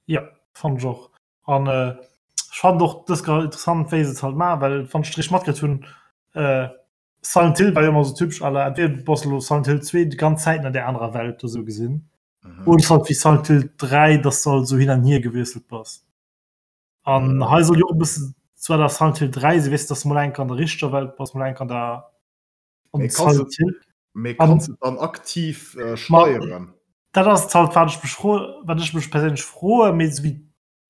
Jo, fannen ech och. An ech fannen och dës grad interessant, wéi se et halt maachen, well wann ech et richteg matkritt hunn, Silent Hill war jo ëmmer esou typesch à la entweder du bass elo Silent Hill 2 déi ganz Zäit an där anerer Welt do esou gesinn, oder et ass halt wéi Silent Hill 3, dass du halt esou hin an hier gewiesselt bass. An hei soll jo och e bëssen zwar der Silent Hill 3 sinn, weess de, dass du mol eng Kéier an der richteger Welt bass, mol eng Kéier an der Mee kanns Silent Hill. Mee kanns de dann aktiv steieren? Dat ass et halt, wat ech mech fro, wat ech mech perséinlech froen, mee esou wéi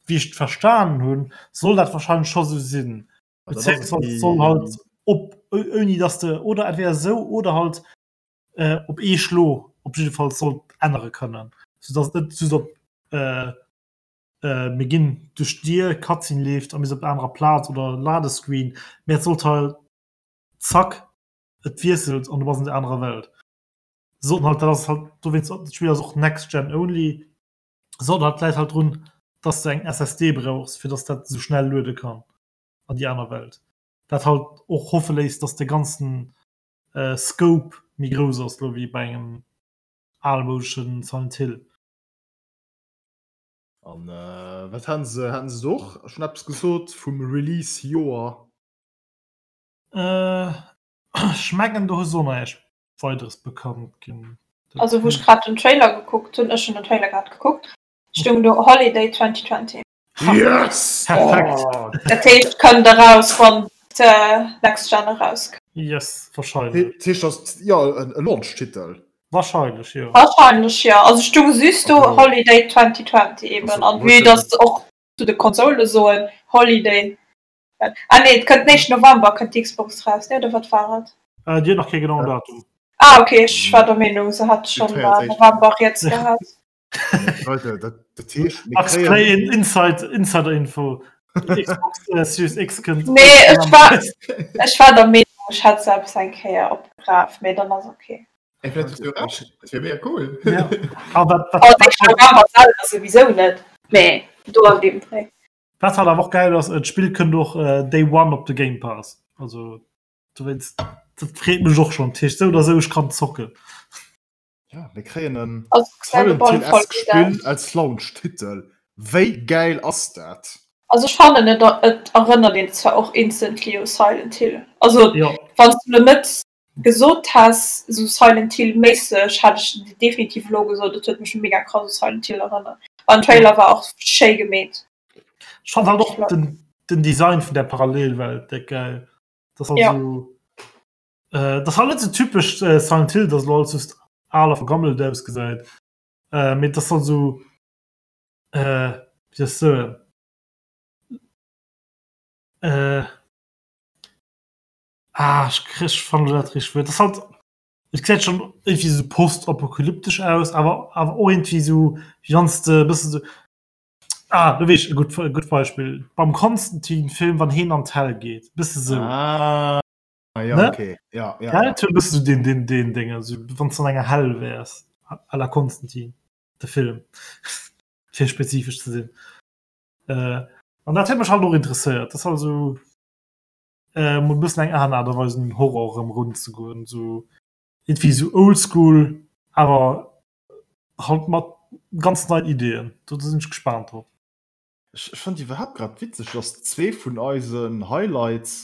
wéi ech et verstanen hunn, soll dat wahrscheinlech scho sou sinn. Beziehungsweise soll halt op ouni dass de oder entweder esou oder halt äh, op ee Schlo op jiddefalls soll ännere kënnen, soudass et net just op äh, äh, mir ginn duerch d'Dier, Cutscene leeft a mir sinn op der anerer Plaz oder Ladescreen, mee et sollt halt zack et wiesselt an du bass an der anerer Welt. Sollten halt dat ass halt dowéinst dat Spill ass och next gen only. Sollten halt d'Läit halt drun, dass de eng SSD brauchs, fir dass dat sou schnell luede kann an déi aner Welt. Dat halt och hoffe léisst, dass de ganzen äh, Scope méi grouss ass lo wéi bei engem almoudeschen Silent Hill. An äh, wat haten se haten se do och schonn eppes gesot vum Release-Joer? Äh, ech mengen do hu se och näischt Weideres bekannt ginn. Also wou ech grad den Trailer gekuckt hunn, ech hunn den Trailer grad gekuckt, stoung do Holiday 2020. Yes! Perfekt! Oh. Dat heescht kënnt eraus wann d'Next Gen erauskënnt. Yes, wahrscheinlech. Dat heescht ass jo e Launch-Titel. Wahrscheinlech jo. Wahrscheinlech jo. Also stoung just do Holiday 2020 eben an vue dass se och zu de Konsole soen Holiday Ah nee, et kënnt den éischten November kënnt d'Xbox raus, ne? Oder wat war et? Äh, déi huet nach kee genauen Datum. Ah okay, ech war der Meenung se hat schonn 23. November riets gehat. Leute, dat, dat heescht, mir Max kréien Play in Inside, Insider Info. Xbox äh, Series X kënnt. Nee, ech war, ech war der Meenung, ech hätt se eppes eng Kéier opgeraf, mee dann ass okay. Ey, vielleicht hues du recht. Dat wär mega cool. Ja. Aber wat, wat, Also wat, éischten November selwer souwisou net, mee do an deem Dréi. Wat halt awer och geil ass, d'Spill kënnt och Day One op de Game Pass. Also dowéinst, dat freet mech och schonn. Dat heescht sou oder sou, ech kann zocken. Ja, mir kréien en Also gesäit op alle Fall Silent gutt Hill-esque aus. Spill als Launch-Titel. Wéi gäil ass dat? Also ech fannen et et erënnert een zwar och instantly u Silent Hill. Also Jo. wann s du lo net gesot häss sou Silent Hill méisseg, hätt ech definitiv elo gesot et huet mech mega krass u Silent Hill erënnert. An den Trailer war och schéi gemeet. Ech fand halt och den, den Design vun der Parallelwelt déck geil. Das halt Ja. so, äh, das halt net so typesch äh, Silent Hill, dass lo alles just al a vergammelt ausgesäit. Äh, mee das halt so äh, wéi soll ech soen äh, Ah, ech kriss, ech fannen dat richteg Wuert. Das halt, et gesäit schon irgendwie so postapokalyptesch aus, awer awer och irgendwie so wéi wann s de e bëssen so ah, do weess ech e gutt e gutt Beispill, beim Constantine-Film, wann heen an d'Hell geet, bësse sou. Ah, ja, Ne? okay. Ja, ja, Gell? ja. Et huet e bësse sou deen deen deen Déng, also wann s de an enger Hell wäers, à la Constantine, de Film, fir spezifesch ze sinn. Äh, an dat huet mech halt och interesséiert, dat ass halt sou. Äh, mol bëssen eng aner Aart a Weis un den Horror erëm erunzegoen, sou. Irgendwie sou oldschool, awer halt mat ganz neien Ideeën. Do sinn ech gespaant drop. Ech fannen iwwerhaapt grad witzeg, dass zwee vun eisen Highlights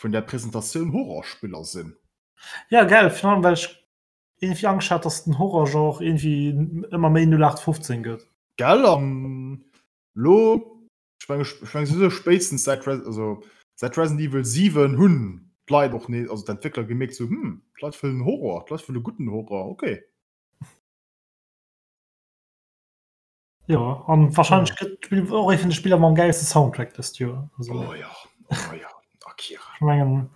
vun der Presentatioun Horrorspiller sinn. Ja gell, virun allem well ech irgendwie Angscht hat, dass den Horrorgenre irgendwie ëmmer méi 0815 gëtt. Gell, an lo, ech meng, ech meng souwisou spéitstens säit Res-, also säit Resident Evil 7 hunn d'Leit och nees, also d'Entwéckler gemierkt sou, hm, d'Leit wëllen Horror, d'Leit wëlle gudden Horror, okay. Jo, an wahrscheinlech gëtt d'Spill och ee vun de Spiller mam gäilste Soundtrack dëst Joer. Also, oh ja, oh ja, Akira. Ech mengen,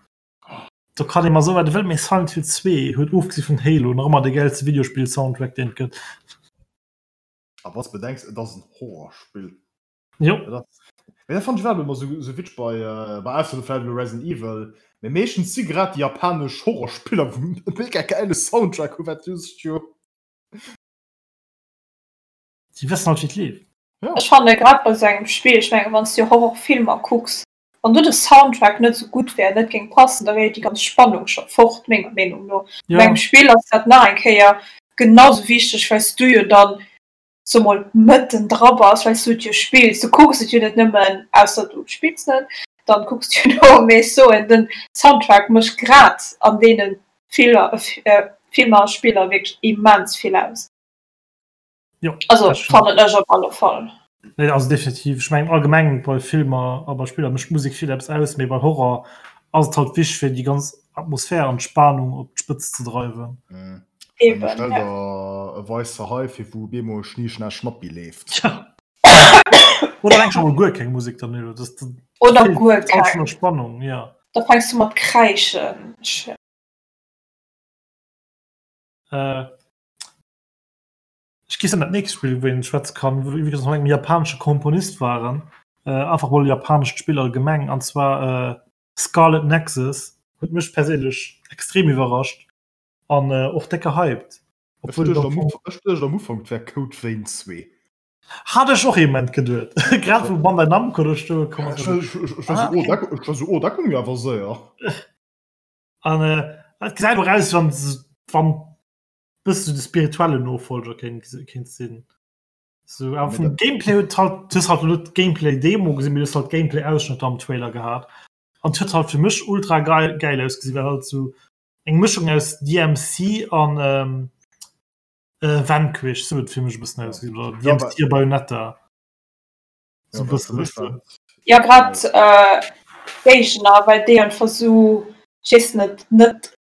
do kann ee mer soen, wat e wëll, mee Silent Hill 2 huet ofgesi vun Halo nach ëmmer de gäilste Videospill-Soundtrack, deen et gëtt. A wann s de bedenks, et ass en Horrorspill. Jo. Dat ass, mee dat fannen ech iwwerhaapt ëmmer esou, esou witzeg bei, bei ausser vläicht elo Resident Evil, mee meeschtens si grad déi japanesch Horrorspiller, wou e mega gäile Soundtrack hu, wat just jo. Déi wëssen halt wéi et leeft. Ja. Ech fanne grad bei sou engem Spill, ech mengen wann s du Horrorfilmer kucks, wann do de Soundtrack net sou gutt wär, net géing passen, da wär jo déi ganz Spannung scho fort, menger Meenung no. Ja. Bei engem Spill ass dat nach eng Kéier genau sou wichteg, well s du jo dann, so mol, mëtten dra bass, well s du et jo spills. Du kucks et jo net nëmmen, ausser du spills net, dann kucks du jo no, mee ech soen, den Soundtrack mécht grad an deene Filmer a Spiller wierklech immens vill aus. Jo, Also dat stimmt. fannen ech op alle Fall. Nee, also definitiv. Ech mengen allgemeng bei Filmer a bei Spiller mécht d'Musek vill eppes aus, mee bei Horror ass et halt wichteg fir déi ganz Atmosphär an d'Spanung op d'Spëtz ze dreiwen. Mhm. Eben, Stell ja. der e weisse Hai fir wou op eemol Schni Schna Schnappi leeft. Ja. Oder eleng scho mol guer keng Musek dann elo. Das, das Oder feelt guer all schon keng. der Spannung, ja. Da fänks du mat kräischen. Ech, Äh, Ech géif soen, dat nächst Spill, wou een schwätze kann, wou iwwregens mat engem japanesche Komponist waren, äh, einfach mol e japanescht Spill allgemeng, an zwar äh, Scarlet Nexus, huet mech perséinlech extrem iwwerrascht an äh, och déck gehypt. Ech Obwuel et duecht am am Fong Uf ech duecht am Ufank, et wär Code Vein 2. Hat ech och ee Moment geduet, grad wou Bandai Namco do stoe komm ass. Ech war ech ech war Ah, sou, oh okay. dat ech war sou, oh dat goung jo awer séier. An äh, et gesäit och aus, wann wann bëssen de spirituellen Nofolger kéint kéint sinn. So, awer vum Gameplay huet halt du hues halt net Gameplay Demo gesinn, mee du hues halt Gameplay Ausschnëtter am Trailer gehat. An et huet halt fir mech ultra geil geil ausgesinn, well halt sou eng Mëschung aus DMC an ähm, äh, Vanquish, sou huet et fir mech e bëssen ausgesinn, oder Ja, DMC a Bayonetta. Ja, So e well bëssen, fir mech weess de. war Ja grad äh, Géigner, well déi einfach sou, ech weess net, net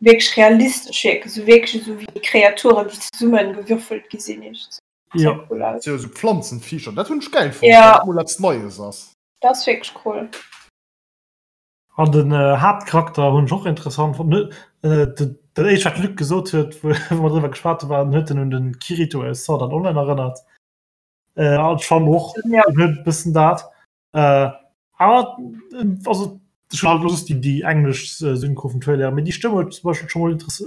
wierklech realistesch wierken, sou wierklech esou wéi Kreaturen, déi zesummengewürfelt gi sinn. Ja. Cool aus. Ja, sou Pflanzenviecher, dat hunn ech geil fonnt, Ja. well dat mol eppes Neies ass. Dat ass wierklech cool. An den äh, Haaptcharakter hunn ech och interessant fonnt. Ne, äh, dat dat éischt wat Luc gesot huet, wou wou mer driwwer geschwat hu war, en huet en un den Kirito aus Sword Art Online erënnert. Äh, an ech fannen och, Ja. en huet e bëssen dat. Äh, awer also ech hunn halt elo just déi déi englesch Synchro vum Trailer, mee déi Stëmm huet zum Beispill scho mol interess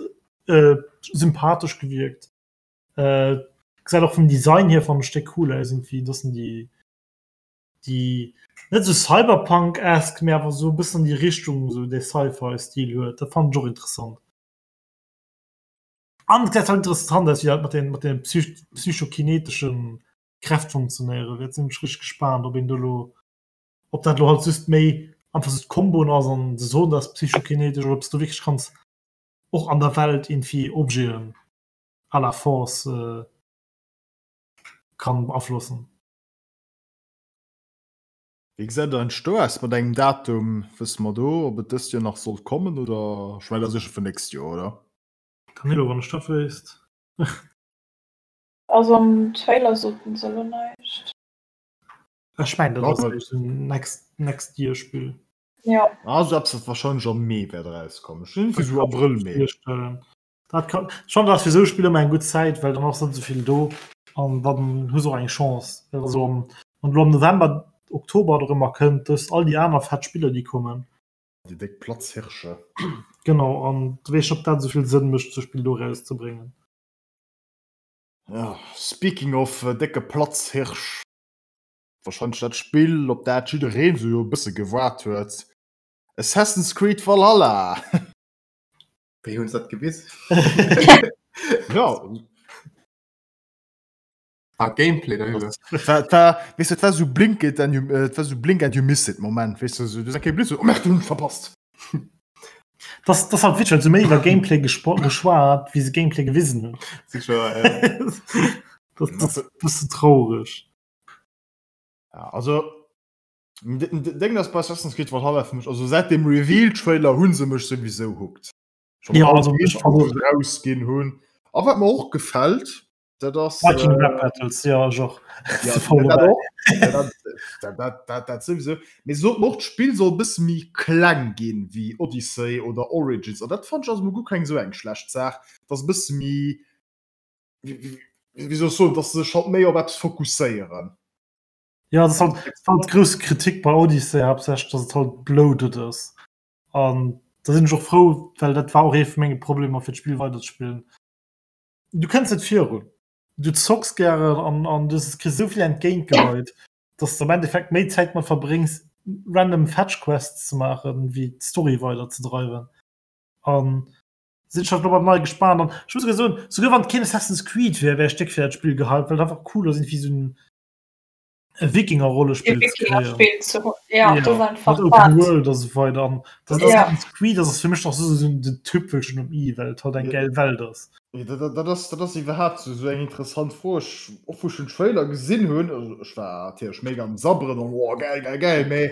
äh, sympathesch gewierkt. Äh, gesäit och vum Design hier fannen ech déck cool aus irgendwie, dass en déi déi net sou Cyberpunk-esque, mee awer sou e bëssen an déi Richtung sou dee Sci-Fi-Stil huet. Dat fannen ech och interessant. An et gesäit halt interessant aus, wéi dat mat den mat den psych psychokineteschen Kräft funktionéiere wäert. Sinn ech richteg gespaant, ob een do lo, ob dat lo halt just méi einfach sou d'Komboen ass an se soen, dat ass psychokinetesch, oder ob s du wierklech kanns och an der Welt irgendwie Objeten à la Force kann beaflossen. Wéi gesäit et eigentlech do aus mat engem Datum? Wësse mer do, ob et dëst Joer nach sollt kommen oder? Ech mengen, dat ass sécher fir nächst Joer, oder? Danilo, wann ech dat wéisst. Also am Trailer soten se elo näischt. Ech mengen dat ass eréischt en next next year Spill. Ja. Also eppes wat wahrscheinlech am Mee wäert erauskommen. Ech hunn iergendwéi sou Abrëll, Mee. Virstellen. Dat kann schon ass fir sou Spiller ëmmer eng gutt Zäit, well dann ass net esou vill do an dann hu se och eng Chance. Well also am wann elo am November, Oktober oder ëmmer kënnt, du hues all déi aner fett Spiller déi kommen. Déi déck Platzhirsche. Genau an du weess net ob dat esou vill Sënn mécht sou Spill do erauszebréngen. Ja, speaking of décke Platzhirsch, wahrscheinlech dat Spill, op dat jiddereen sou jo e bësse gewaart huet, Assassin's Creed Valhalla! Wéi hunn se dat gewisen? Ja. Ah, Gameplay darüber. Dat war, weess du, dat war sou blink it and you, äh, dat war sou blink and you miss it Moment, weess du, sou, du sag, blitz, oh merde, hunn verpasst. Das, das halt witzeg, well se méi iwwer Gameplay geschwat, wéi se Gameplay gewisen hunn. Sicher, ja. Das, das ist bëssen traurig. Ja, also, Deng ass bei Assassin's Creed Valhalla fir mech, also säit dem Reveal-Trailer hu se mech souwisou hooked. Schon ja, also mech rausginn hunn. A wat mer och gefält, dat ass Viking äh, Rap Battles, ja, ech och. Ja, dat och. Ja, dat, dat, dat, dat souwisou. Mee se soten och, d'Spill soll e bësse méi kleng ginn wéi Odyssey oder Origins. An dat fand ech ass emol guer keng esou eng schlecht Saach, dass e bësse méi, wéi, wéi soll ech soen, dass se sech halt méi op eppes fokusséieren. Ja, das halt, das halt grousse Kritik bei Odyssey hauptsächlich, dass et halt bloated ass. An da sinn ech och frou, well dat war och ee vu menge Problemer fir d'Spill weiderzespillen. Du kënns net virun. Du zocks gären an, an du kriss esou vill entgéintgeheit, dass du am Endeffekt méi Zäit mat verbréngs, random Fetch Quests ze maachen, wéi d'Story weiderzedreiwen. An sinn ech halt lo beim neie gespaant. An ech muss souguer soen, souguer wann et keen Assassin's Creed wär, wär ech déck fir dat Spill gehypt, well et einfach cool ass, iergendwéi esou en Wikinger-Rollespill ze kréien. Ja, ja, das einfach Open World a sou weider an das ja. Assassin's Creed das ass fir mech nach so, so den Tüpfelchen um i, well et halt eng geil Welt ass. Ja, dat, dat, ass, dat ass iwwerhaapt so, so eng interessant Fro. Ech, och wou ech den Trailer gesinn hunn, also ech war natierlech mega am Sabberen an oh, geil, geil, geil, mee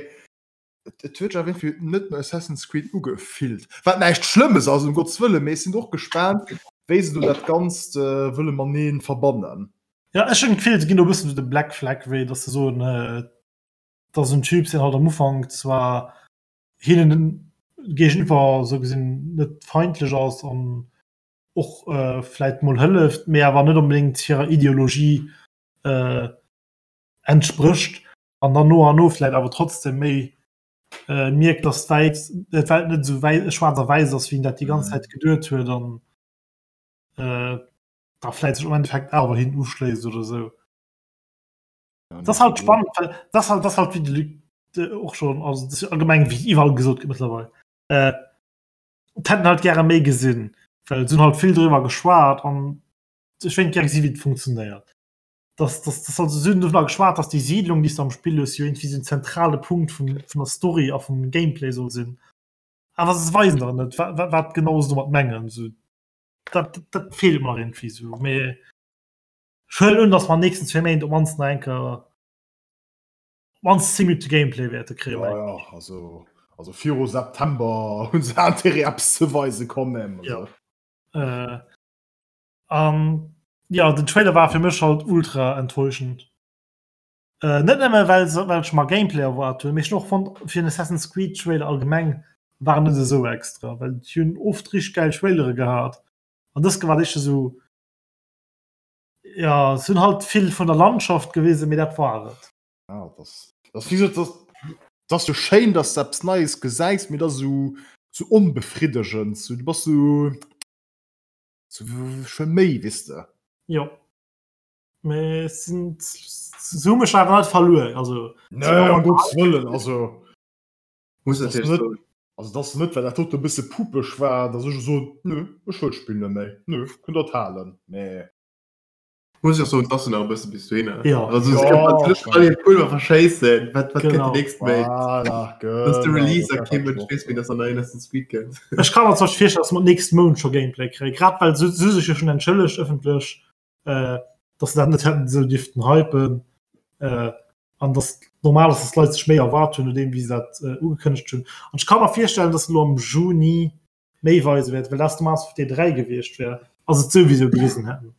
et, et huet sech awer irgendwie net no Assassin's Creed ugefillt. Wat näischt Schlëmmes ass, um Gottes Wëllen, mee ech sinn och gespaant, wéi se do dat Ganzt äh, wëlle matenee verbannen. Ja ech hunn d'Gefill se ginn do e bëssen sou de Black Flag Wee, datt se soen, datt esou en Typ sinn halt am Ufank zwar hinnen géigeniwwer sou gesinn net feindlech ass an och vläit mol hëlleft, mee awer net onbedéngt hirer Ideologie entsprécht an dann no an no vläit awer trotzdem méi mierkt, datt d'Welt d'Welt net esou wäi schwaarz a wäiss ass, wéi en dat déi ganz Zäit geduet huet an da vläit sech am Endeffekt awer hin uschléisst oder sou. Ja, das halt spannend weil das halt das halt wie de Luc de, och schon also das allgemeng wie iwwerall gesot gëtt mittlerweile äh, hätten halt gerne méi gesinn well sinn halt vill drüber geschwat an ech wéint gerne gesinn wie et funktionéiert das das das also sinn drüber geschwat dass die Siedlung die du am Spiel hues jo irgendwie so en zentrale Punkt vum vun der Story a vum Gameplay soll sinn awer se weisen der net wat wat genau se domat mengen so dat, dat feelt mer irgendwie so mee ech huelen un dass mer nächsten zwee Méint op mannst nach eng Kéier op mannst 10 Minute Gameplay wäerte kréien. Ja, ja, also, also viru September hunn se Intérêt eppes ze weisen quand même. Also. Ja. Äh, an ja, den Trailer war fir mech halt ultra enttäuschend. Äh, net nëmme well se well ech mer Gameplay erwaart hunn, mee ech hunn och fonnt fir en Assassin's Creed Trailer allgemeng war en net esou extra, well déi hunn oft richteg gäil Trailere gehat an dës war éischter esou ja se hunn halt vill vun der Landschaft gewisen, mee dat war et. Ja, das, das, wie gesagt, das, das ass jo schéin, dass du eppes Neies gesäis, mee dat ass esou, esou onbefriddegend, sou, du bass sou, sou ech wëll méi, weess de. Jo. Mee sinn se hu mech awer net verluer also Nee, um Gottes Wëllen, also Muss das natierlech net, soen. also das net, well dat dote e bësse pupeg war, dass ech elo soen, nö, ech wëll d'Spill net méi, nö, kënnt der et halen, mee. Muss ech och soen, et ass jo nach e bësse bis dohinner. Ja. Also se Ja, kënnen natierlech all hiert Pulver verschéissen, wat wat kënnt Genau. déi nächst Méint? Voilà, Dass de genau, Release dat a war kee dat Mënsch och. weess, wéi dass an neien Assassin's Creed kënnt. Ech ka mer zum Beispill virstellen, dass mer d'nächst Mount scho Gameplay kréien, grad well se se sech jo schonn entschëllegt ëffentlech. äh, dass se dat net hätten esou dierften hypen äh, an dass normal ass, dass d'Leit sech méi erwaart hunn, nodeem wéi se dat äh, ugekënnegt hunn. An ech ka mer virstellen, dass se elo am Juni méi weise wäert, well dat normalerweis op D3 gewiescht wär, ass et souwisou gewisen hätten.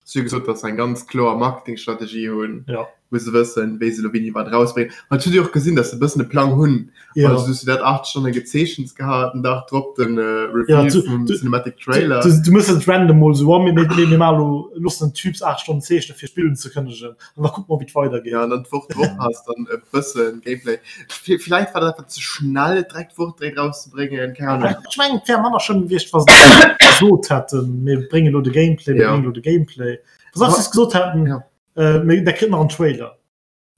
Si hu gesot, dass se eng ganz kloer Marketingstrategie hunn, Ja. wou se wëssen, wéi se elo wéini wat erausbréngen. An et huet ee och gesinn, dass se e bëssen e Plang hunn. Ja. Also du hues jo dat 8 Stonne gezeechent gehat, den Dag drop den Ja, Reveal du, vum du, Cinematic du, Trailer. du, du muss et random mol so, oh, mir, mir, mir maachen elo, loossen den Typs 8 Stonnen zeechnen fir d'Spill unzekënnegen an da kucke mer wéi et weidergeet. Ja, an dann d'Woch drop has dann e bëssen Gameplay. Villäicht war dat einfach ze schnell et direkt d'Woch direkt rauszebréngen, keng Ahnung. Ech mengen et wär manner schlëmm gewiescht wa se gesot hätten, mir bréngen elo de Gameplay, mir Ja. bréngen elo de Gameplay. Wa se einfach just gesot hätten, Ja. äh, mir, der kritt nach en Trailer.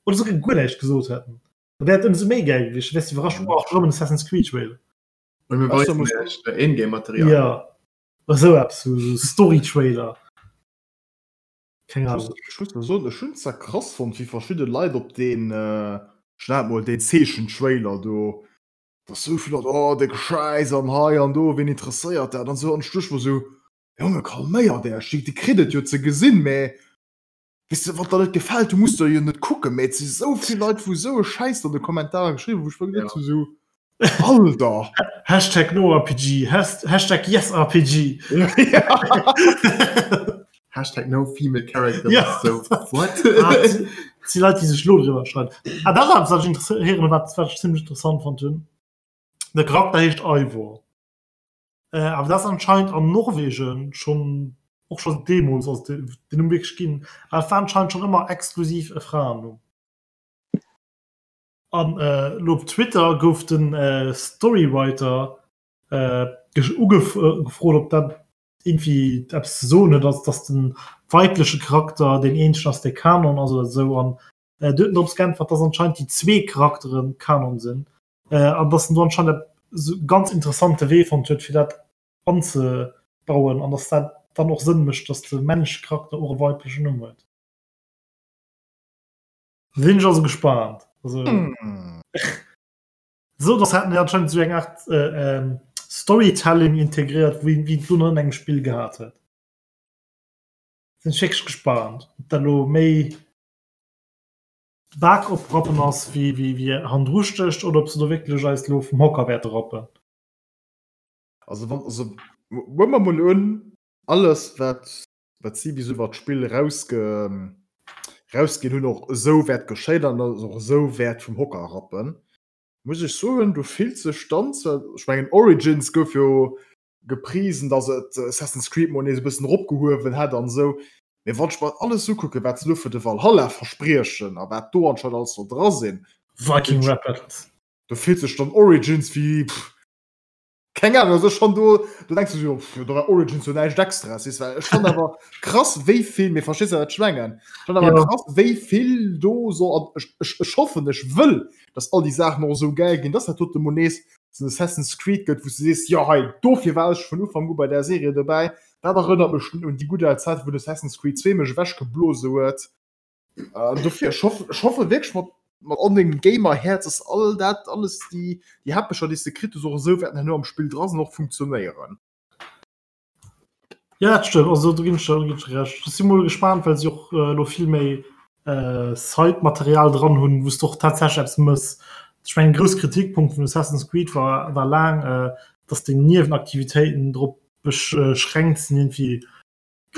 Oder souguer guer näischt gesot hätten. Da wär et ëmsou méi gäil gewiescht, da wäers du iwwerrascht, oh, erëm en Assassin's Creed Trailer. Und mir weisen iech Ingame-Material. Ja, esou eppes, sou Story-Trailer. Keng Ahnung. Ech muss soen, ech hunn zwar krass fonnt, wéi verschidde Leit op deen, ech nennen et mol deen Zeechen-Trailer do, dass sou vill Leit, oh de Schäiss an hei an do, ween interesséiert dat an sou. An ech duecht mer sou, Jonge calméiert Äech, Dir kritt et jo ze gesinn, mä weess de, wann der net gefält, du muss der jo net kucken. Mä et si sou vill Leit, wou sou e Schäiss an de Kommentarer geschriwwen, wou ech mer geduecht hu sou, Alter! Hashtag NoRPG, Hashtag YesRPG. Hashtag no female character. Ja. So, what? Ah, si Leit, déi sech lo driwwer schreiwen. Ah, dat ass eppes, wat ech interesséieren, wat, wat ech zimmlech interessant fonnt hunn. De Charakter heescht Eivor. Äh, awer dat ass anscheinend an Norwegen schonn, och scho deemools, also den Numm wierklech ginn. Awer et war anscheinend schonn ëmmer exklusiv e Fraennumm. An elo op Twitter gouf de Storywriter ugefrot, ob dat iergendwéi eppes ze soen huet, also datt de weibleche Charakter deen eenzegen ass, dee Kanon ass oder esou. An do huet en drops geäntwert, datt anscheinend déi zwee Charaktere Kanon sinn an datt en do anscheinend e ganz interessante Wee fonnt huet, fir dat anzebauen an datt dat dann och Sënn mécht, datt de männleche Charakter och e weiblechen Numm huet. Sinn ech also gespannt. Also, mm. So das hatten anscheinend so eng Art äh, ähm, Storytelling integriert, wie, wie du an engem Spiel gehabt huet. Sinn ech wierklech gespannt, ob dat lo méi Bak oprappen ass wéi, wéi, wéi handruschtegt oder ob se do wierklech eis lo vum Hocker wäerte rappen. Also wann also huele mer mol un alles wat wat si bis iwwer d'Spill erausge rausginn hunn och esou wäert geschéien an dass och esou wäert vum Hocker rappen, muss ech soen, do fillt sech dann zwar, ech mengen Origins gouf jo geprisen, dass et Assassin's Creed mol nees e bëssen eropgehuewen hätt an esou, mee wann ech mer alles ukucken, wat se elo fir de Valhalla verspriechen a wat do anscheinend alles soll dra sinn, Viking Rap Battles. do fillt sech dann Origins wéi, pff, Keng Ahnung, also ech fand do, do denkst du jo, pff, do war Origins jo näischt Extras, weess well ech fand awer krass wéi vill, mee verstees de wat ech mengen? Ech fand awer Ja. krass wéi vill do soll an ech, ech, ech hoffen, ech wëll, dass all déi Saachen och esou gäil ginn, dass dat dote mol nees esou en Assassin's Creed gëtt, wou s du sees, jo hei, dofir war ech vun Ufank u bei där Serie dobäi, dat erënnert mech un déi gutt al Zäit, wou den Assassin's Creed 2 mech ewechgeblose huet. Äh, dofir, ech hoff, ech hoffe wierklech mat, mat all mengem Gamer-Häerz, dass all dat, alles déi, déi Häppecher, déi s de kritt hues, och esou wäerten herno am Spill dra sinn an och funktionéieren. Ja, dat stëmmt. Also do ginn ech der, do ginn ech der Recht. Ech si mol gespaant, well si och äh, elo vill méi äh, Side-Material dran hunn, wou s de och tatsächlech eppes mëss. Ech mengen, grouss Kritikpunkt vun Assassin's Creed war, war laang, äh, dass deng Niewenaktivitéiten drop beschränkt sinn, irgendwie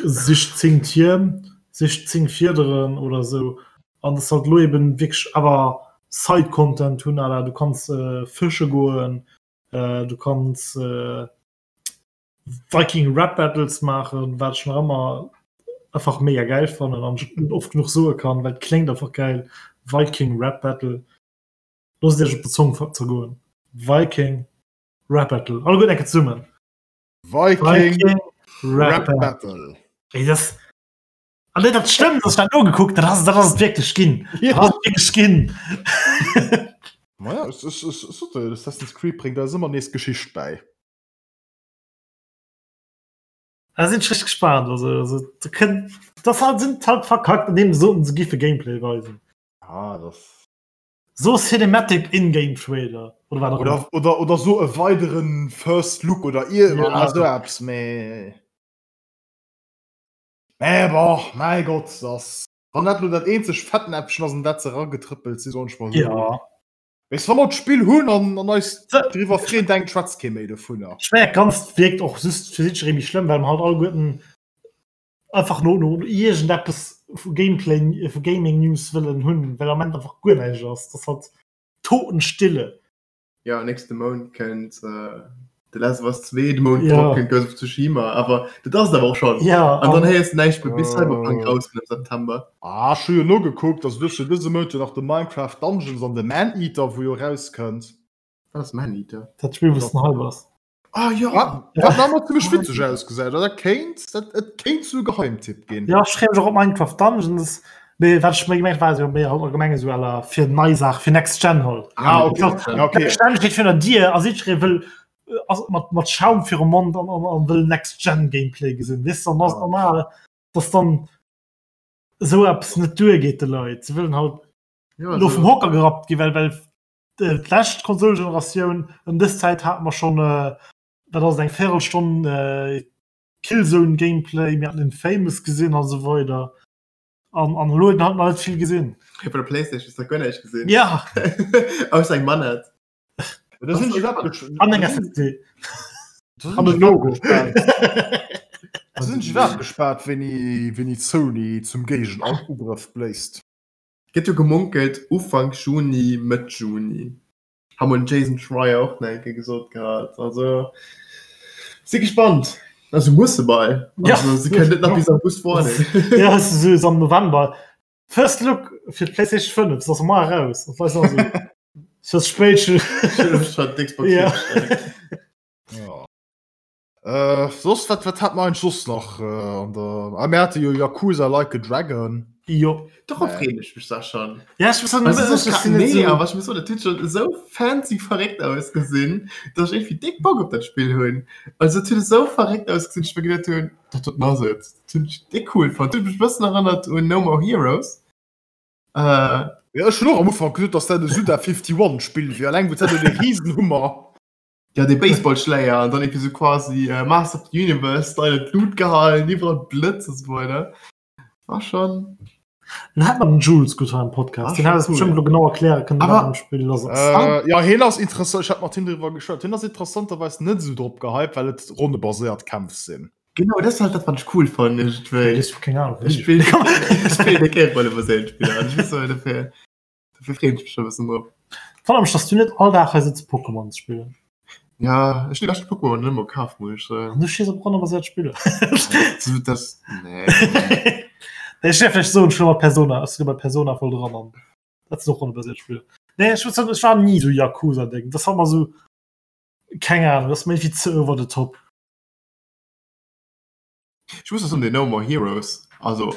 Sich 10 Tierm, sich 10 Fiederen oder esou an dass halt elo eben wierklech awer Side Content hunn à la du kanns fësche goen, du kanns Viking Rap Battles maachen, wat ech nach ëmmer einfach mega gäil fannen an ech net oft genuch soe kann, well et kléngt einfach gäil, Viking Rap Battle. Loosst et iech op der Zong zergoen, Viking Rap Battle, alleguerten eng Kéier zesummen. Viking Rap Battle. Ey, das ah, nee, dat stëmmt, dat dat nogekuckt, dat ass dat ass et wierklech ginn. Ja. Dat ass et wierklech ginn. Naja, es, es, es, es, es, Assassin's Creed bréngt eis ëmmer nees Geschicht bäi. Da sinn ech richtig gespannt. Also, also, da kënnt, das halt, sind halt verkackt, indem se soten, se giffe Gameplay weisen. Ah, das. So Cinematic In-Game Trailer oder wat och Oder, ëmmer. oder, oder so e weideren First Look oder ir Ja. oder so eppes, mee. Mee bon, mäi Gott, das. Wann dat lo dat eenzeg Fettnäpfchen ass, an dat se eragetrëppelt sinn, soen ech mol esou. Ja. Weess, wa mer d'Spill hunn an, an eis Se- driwwer freeën, denkt schwätzt kee méi dovunner. Ech mengen, dat Ganzt wierkt och just fir jiddweree méi schlëmm, well mer halt alleguerten einfach no no iergendeppes vu Gameplay vu Gaming News wëllen hunn, well am Moment einfach guer näischt ass. Dat ass halt Totenstille. Ja, nächste Mount kënnt äh, The Last of Us 2, de Mount Ja. drop kënnt Ghost of Tsushima, awer dat ass et awer och schonn. Ja, An dann an héiers du näischt méi bis Cyberpunk Äh. rauskënnt am September. Ah, ech hu jo nogekuckt, also du hues jo dëse Mount jo nach de Minecraft Dungeons an de Maneater, wou jo rauskënnt. Wat ass Maneater? dat Spill, wou s den Hype ass. Ah ja! Wat nach ëmmer zimmlech witzeg ausgesäit, dat kéint, dat et kéint zu Geheimtipp ginn. Ja, ech freeë mech och op Minecraft Dungeons. Mee wat ech méi gemengt war jo méi halt allgemeng esou à la fir nei Saach, fir Next Gen halt. Ah, okay. Ja, okay. Next Gen steet virun der Dier a jiddweree wëll. ass mat, mat Schaum virum Mond an, an, an wëll Next Gen Gameplay gesinn. Weess du, dann ass normal, dass dann esou eppes net duergeet de Leit. Se wëllen halt Ja, lo vum Hocker gerappt gi, well, well d'lescht Konsolgeneratioun ëm dës Zäit hate mer schonn, wat ass et, eng Véirelstonn Killzone Gameplay, mir haten Infamous gesinn a sou weider. An, an elo huet een halt nach net vill gesinn. Op der Playstation hues de guer näischt gesinn. Ja! Ausser eng Manett. Da sinn ech iwwerhaapt An eng SSD. An e Logo. Da sinn ech iwwerhaapt gespaant, wéini, wéini Sony zum Géigenugrëff bléist. Gëtt jo gemunkelt Ufank Juni, Mëtt Juni. Hat mol den Jason Schreier och nach eng Kéier gesot gehat. Also si gespannt. Also musse bei. Also si kënnen net nach bis August waarden. Ja, es ist so am November. First Look fir d'PlayStation 5, ass mar eraus. An d'Leit sagen so, es ass spéit. Schon d'Xbox Ja. Ja. Äh, soss, wat, wat hat mer eigentlich soss nach äh, an der. Ah, mir hate jo Yakuza Like a Dragon. Jo. Dorop freeën ech mech da schon. Ja, ech muss sagen, Also, ech ech sinn net nee, so- awer ech muss soen, dat huet schon esou fancy verréckt ausgesinn, dass ech irgendwie déck Bock op dat Spill hunn. Also, dat huet esou verréckt ausgesinn, dass ech mir geduet hunn, dat doten ass et. Dat hunn ech déck cool fonnt. Dat huet mech e bëssen erënnert un No More Heroes. Äh, Ja, ech hunn och am Ufank geduet, dass dat e Suda 51 Spill wier, alleng wou dat de Riesenhummer. Ja, dee Baseballschläier an dann irgendwie so quasi äh, Master of the Universe Style an d'Lut gehalten, iwwerall Blëtz und so weiter. War schon. Den hat man den Jules gut am Podcast. Ah, Den hat es cool. bestimmt lo genau erklären können, Aber- wat am Spiel los ass. Äh, ja, hien ass interessant, ech hat mat him driwwer geschwat. Hien ass interessanterweis net esou drop gehypt, well et ronnebaséiert Kämpf sinn. Genau, das ist halt das, was ich cool fand. Irgendwie. Ich hab keine Ahnung. Ich spiel, ich spiel der keng Rollebaséiert Spiller. an Ich muss so dafür, dafür freue ich mich schon ein bisschen drauf. Wonnert mech, dass du net all Dag hei sitz Pokémon spillen. Ja, ech hunn déi lescht Pokémon net emol kaf, muss ech soen. An du stees op ronnebaséiert Spiller. So, das, nee. Nee, ech däerf vläicht soen, ech hu mat Persona, ech si bei Persona voll dran an dat sinn och ronnebaséiert Spiller. Nee, ech muss soen, ech war ni sou Yakuza-Ding. Das war immer sou, keng Ahnung, das ass mir irgendwie ze over the top. Ech muss och soen, den No More Heroes, also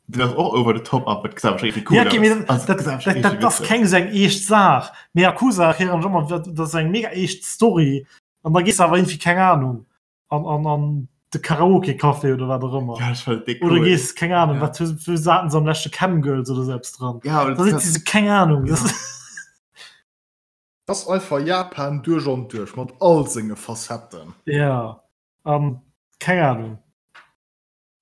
den ass och over the top, awer et gesäit awer scho irgendwie cool Ja, okay, mee aus. Also, dat, et gesäit awer scho dat, dat richtig ass witzeg. keng sou eng eescht Saach. Mee Yakuza erklären ech ëmmer, dat dat ass eng mega eescht Story an da gees de awer irgendwie, keng Ahnung, an, an, an de Karaoke-Café oder wat och ëmmer. Ja, ech fand et déck Oder cool. gees, keng Ahnung, Ja. wat hu wou haten se am leschte Camgirls oder sou eppes dran. Ja, aber Da das sitzt si sou, keng Ahnung. Ja. Das, Das ass einfach Japan duerch an duerch, mat all senge Facetten. ja, an keng Ahnung.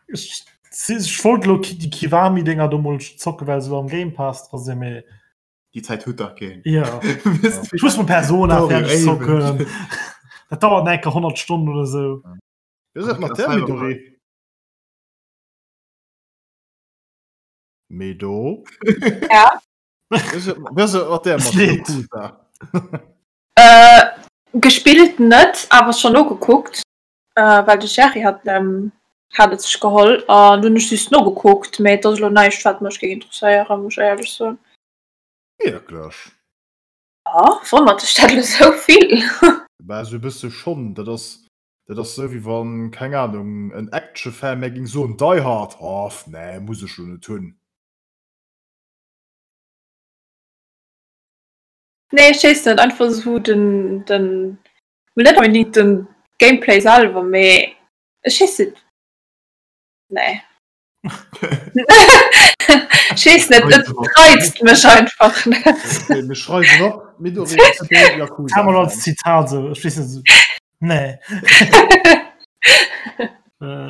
Ech, si- ech wollt lo déi Kiwami-Dinger do mol zocken, well se lo am Game Pass dra sinn, mee Die Zäit huet dach keen. ja. Wisst Ich muss mal Persona Sorry, fertig ey, zocken. Dat dauert enke 100 Stunden oder so. Wéi ass dat mat der Midori? Medo? Ja? Wéi ass dat mat der mat Leed. Yakuza? Äh, gespillt net, awer schon nogekuckt, äh, well de Jerry hat, ähm, hat et sech geholl an dunn ech just nogekuckt, mee et ass elo näischt wat mech géing interesséieren, muss ech éierlech soen. Wierklech? Ja, wonnert dech dat elo sou vill? Bah, esou e bësse schonn. Dat ass, dat ass sou wéi wann, keng Ahnung, en Actionfan mär géing soen, Die Hard, oh, nee, muss ech lo net hunn. Nee, ech weess net, einfach sou den, den, mol net onbedingt den Gameplay selwer, mee ech weess net, nee. Ech weess net, et reizt mech einfach net. Okay, mir schreiwen op, Midori ass keen Yakuza Kann man als Fan. Zitat so, ech weess net, so, nee. Äh,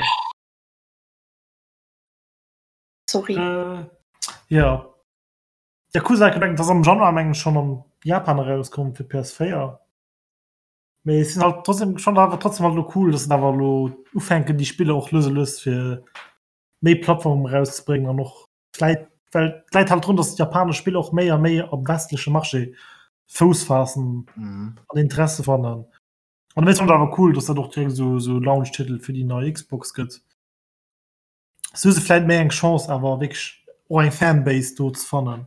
Sorry. äh, ja. Yakuza gemengt, das am Januar mengen schon am Japan erauskomm fir PS4. Mee es sinn halt trotzdem schon awer trotzdem halt lo cool, dass se awer lo ufänken déi Spiller och lues a lues fir méi Plattformen erauszebréngen an och vläit well d'läit halt drun, dass japanesch Spiller och méi a méi am westleche Marché Fouss faassen Mhm. an Interesse fannen. An dowéinst fannen ech awer cool, dass dat och direkt esou esou Launch-Titel fir déi nei Xbox gëtt. Sou hu se vläit méi eng Chance awer wierklech och eng Fanbase do ze fannen.